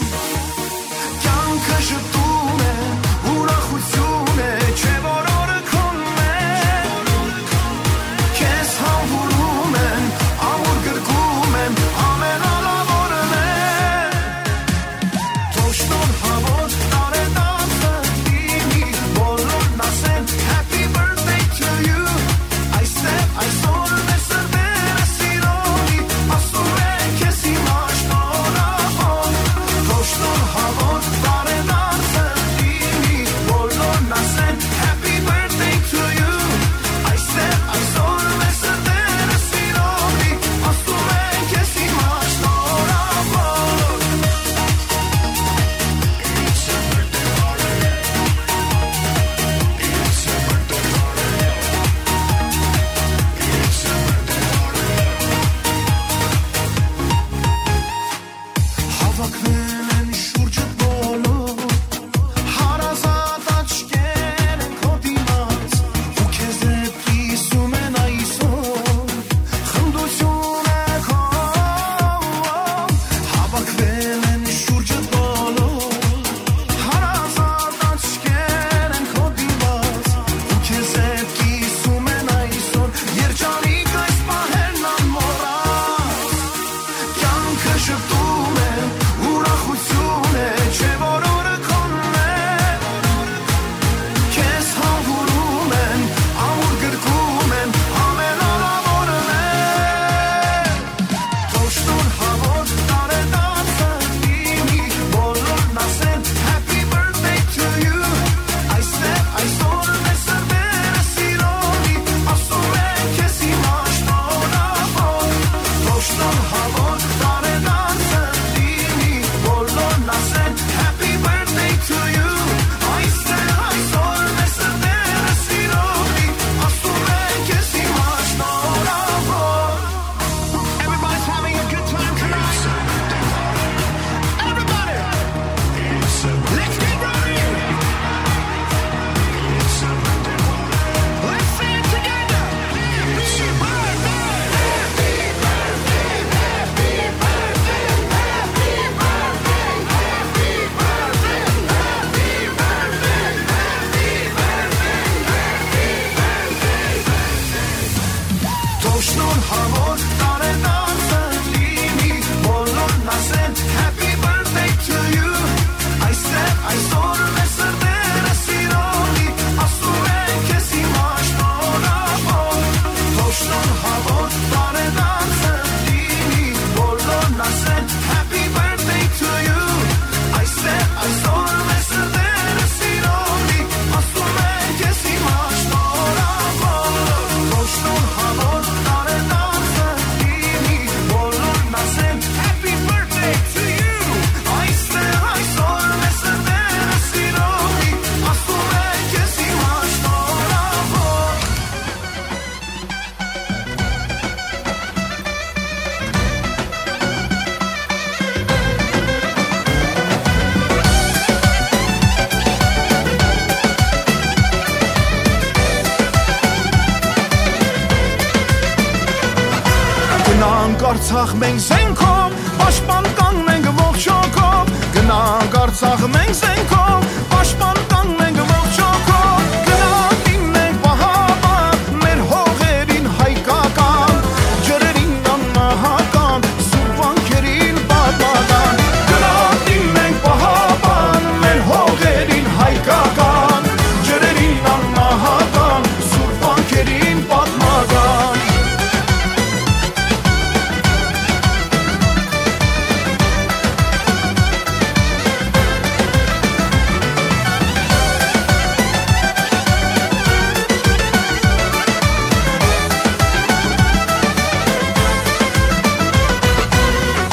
Արցախ մենք զենքով, պաշտպան կանք մենք ողջ հոգով, գնանք Արցախ մենք զենքով, պաշտպան կանք մենք ողջ հոգով, գնանք դիմենք պահապան, մեր հողերին հայկական, ջրերին անմահական, սուրբ վանքերին պատմական, գնանք դիմենք պահապան, մեր հողերին հայկական, ջրերին անմահական, սուրբ վանքերին պատմական։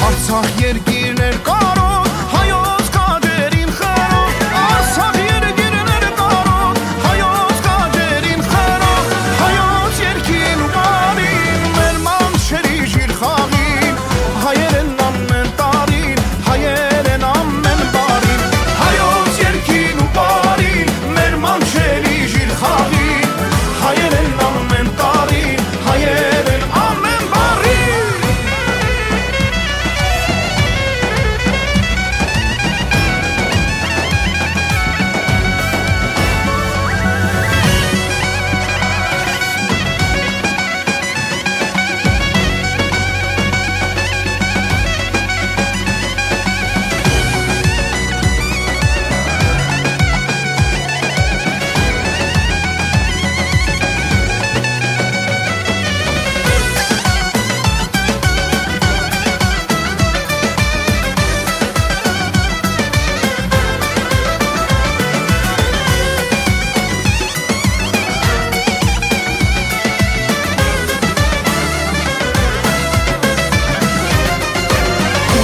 Արցախ երկիրն էր կարօտ, հայոց քաջերին խրօտ։ Արցախ երկիրն էր կարօտ, հայոց քաջերին խրօտ։ Հայոց երկին ու բարին, մեր մանչերի ժիր խաղին, հայերեն ամեն տարին, հայերեն ամեն բարին։ Հայոց երկին ու բարին, մեր մանչերի ժիր խաղին, հայերեն ամեն տարին, հայերեն ամեն բարին։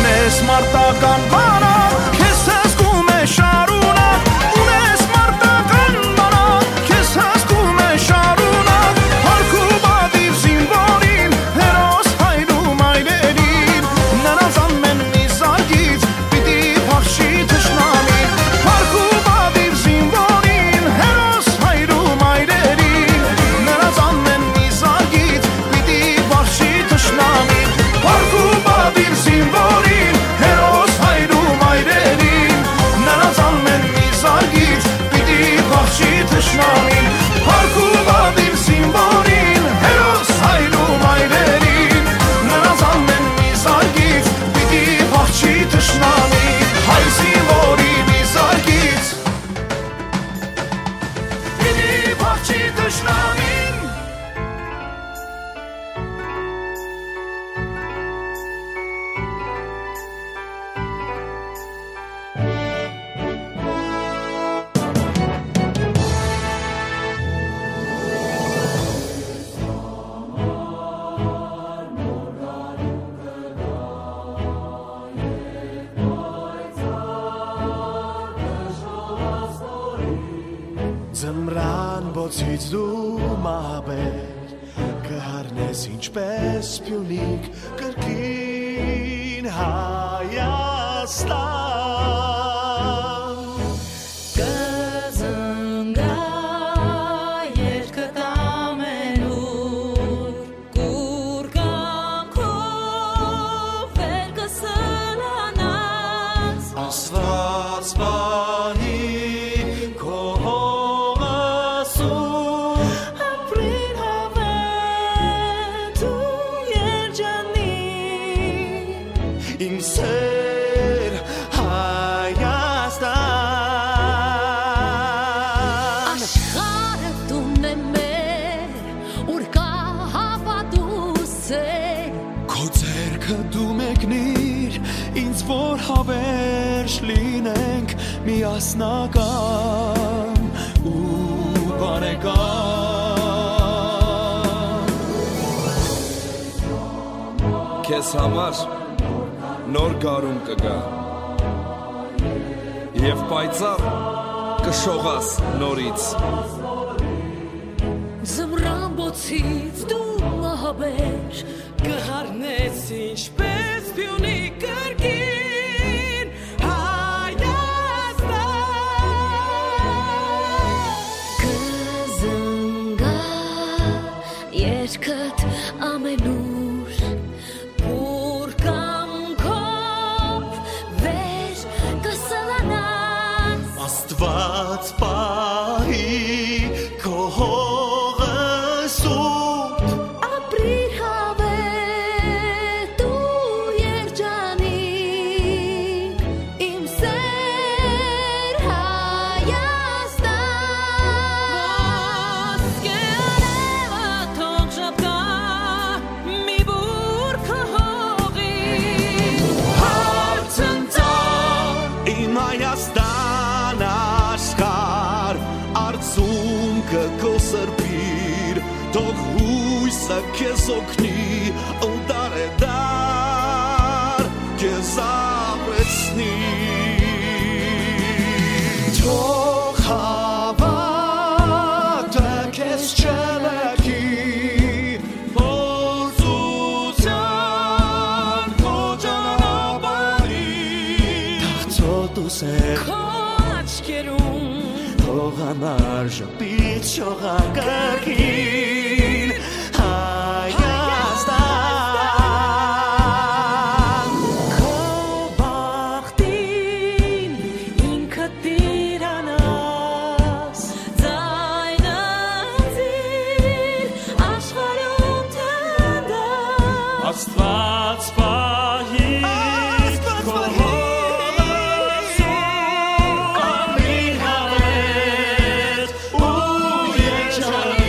Ունես մարտական բանակ, քեզ հսկում է շարունակ, ունես մարտական բանակ, քեզ հսկում է շարունակ, փառք ու պատիվ զինուորին, հերոս հայր ու մայրերին, նրանց ամեն մի զարկից պիտի փախչի թշնամին, փառք ու պատիվ զինուորին, հերոս հայր ու մայրերին, նրանց ամեն մի զարկից պիտի փախչի թշնամին, փառք ու պատիվ զինուորին, հերոս հայր ու մայրերին, նրանց ամեն մի զարկից պիտի փախչի թշնամին, փառք ու պատիվ զինուորին, հերոս հայր ու մայրերին, նրանց ամեն մի զարկից պիտի փախչի թշնամին, հայ զինուորի մի զարկից պիտի փախչի թշնամին։ Ձմրան բոցից դու մահաբեր կը հառնես ինչպես Պիունիկ կրկին Հայաստան։ Կը զնգայ երկդ ամենուր, կուռ կամքով վեր կը սլանաս։ Աստուած պահի քո հողս ու ապրին հաւէն դու երջանիկ, իմ սեր Հայաստան։ Աշխարհը տունն է մեր, ուր կայ հաւատք ու սեր։ Քո ձեռքը դու մեկնիր ինձ, որ հավերժ լինենք միասնական ու բարեկամ։ Քեզ համար նոր գարուն կը գայ, եւ պայծառ կը շողաս նորից։ Ձմրան բոցից դու մահաբեր կը հառնես ինչպես Պիունի կրկին Հայաստան։ Կը զնգայ երկդ ամենուր, Քեզ օգնի ու դարեդար քեզ ապրեցնի։ Թող հավատքը քեզ չլքի փորձության քո ճանապարհին։ Թաղցոտ ու սեր քո աչքերուն, թող անարժ պիտ շողակարգին Հայաստան։ Քո բախտին ինքդ տիրանաս, ձայնը ձին աշխարհում թնդաս։ Աստուած պահի Աստուած քո պահի հոգս ու անմիջապես ու երջանիկ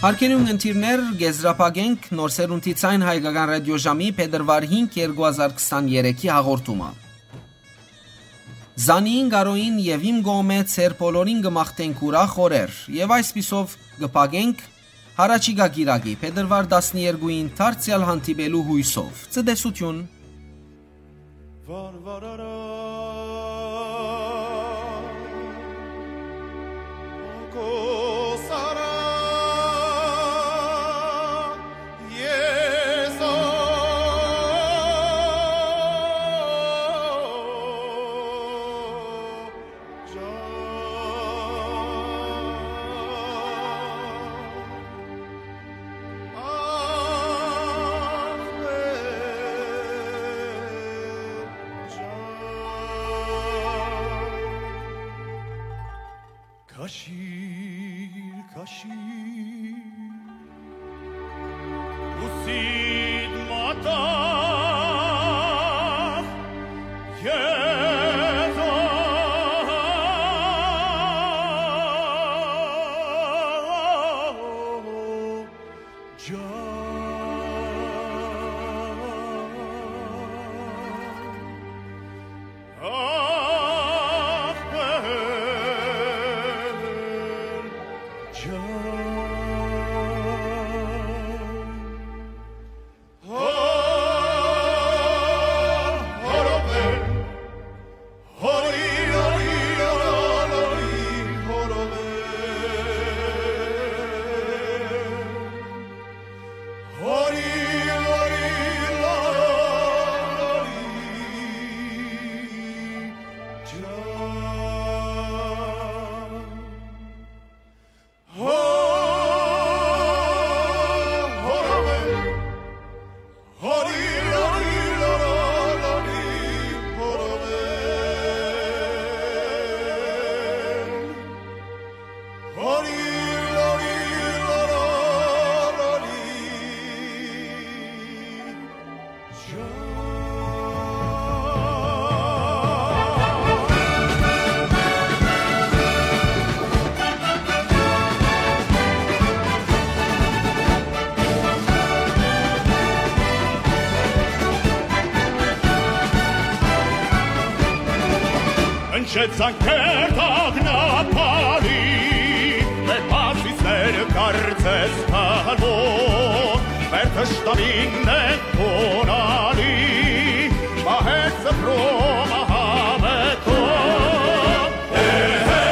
Հարգելի ունգընտիրներ, կ'եզրափակենք Նոր Սերունդի Ձայն Հայկական Ռադիոժամի փետրուար հինգ, երկու հազար քսաներեքի հաղորդումը։ Զանիին, Կարոյին եւ իմ կողմէ ձեր բոլորին կը մաղթենք ուրախ օրեր եւ այսպիսով կը փակենք յառաջիկայ կիրակի, փետրուար տասներկուին դարձեալ հանդիպելու յոյսով։ Ցտեսութիւն։ Քաշիր, քաշիր, ուսիդ մատաղ, Եզա։ Հնչեց զանգեր տագնապալի, մեր պարսիցները կարծես թալմոտ, մեր թշնամիներն են խոնալի, մահեր սփռում ահամեթով։ Հե, հե,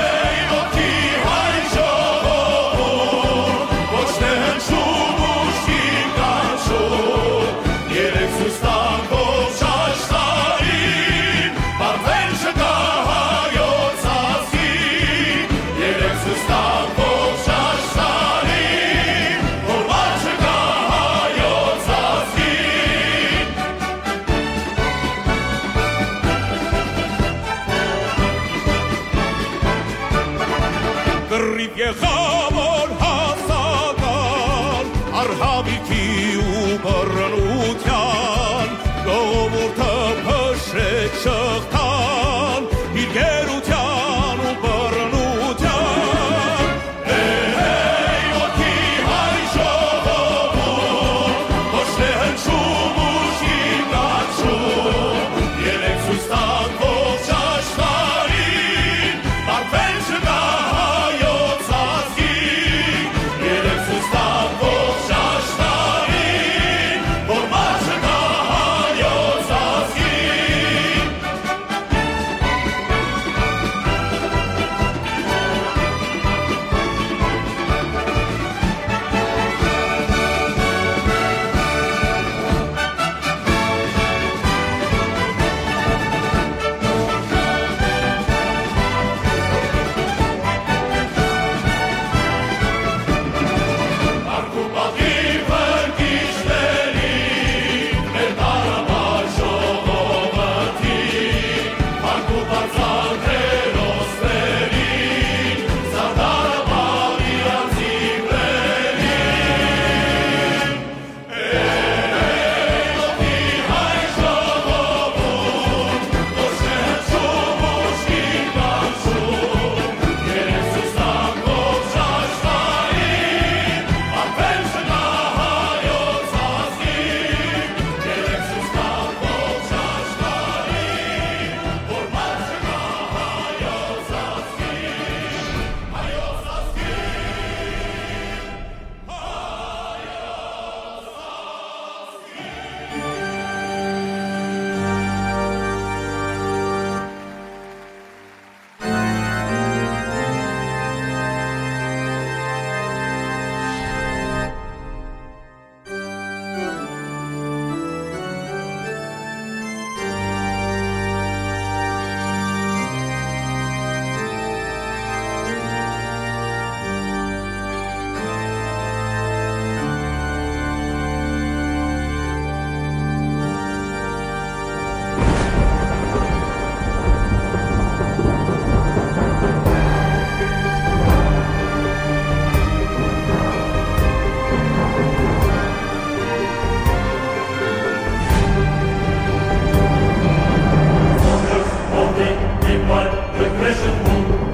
ոտքի հայ ժողովուրդ, ոչ թե հնչում ուժգին կանչում, երեկ ցույց տանք ողջ աշխարհին, պարտվել չկա հայոց ազգին, երեկ ցույց տանք ողջ աշխարհին, որ վար չկա հայոց ազգին։ Կռիվ եղաւոր հասական, առհավիքի ու բռնության, ժողովուրդը փշրեց շղթան, իր գերության ու բռնության։ Հե, հե, ոտքի հայ ժողովուրդ, ոչ թե հնչում ուժգին կանչում, երեկ ցույց տանք ողջ աշխարհին, պարտվել չկա հայոց ազգի։ Crescent Moon,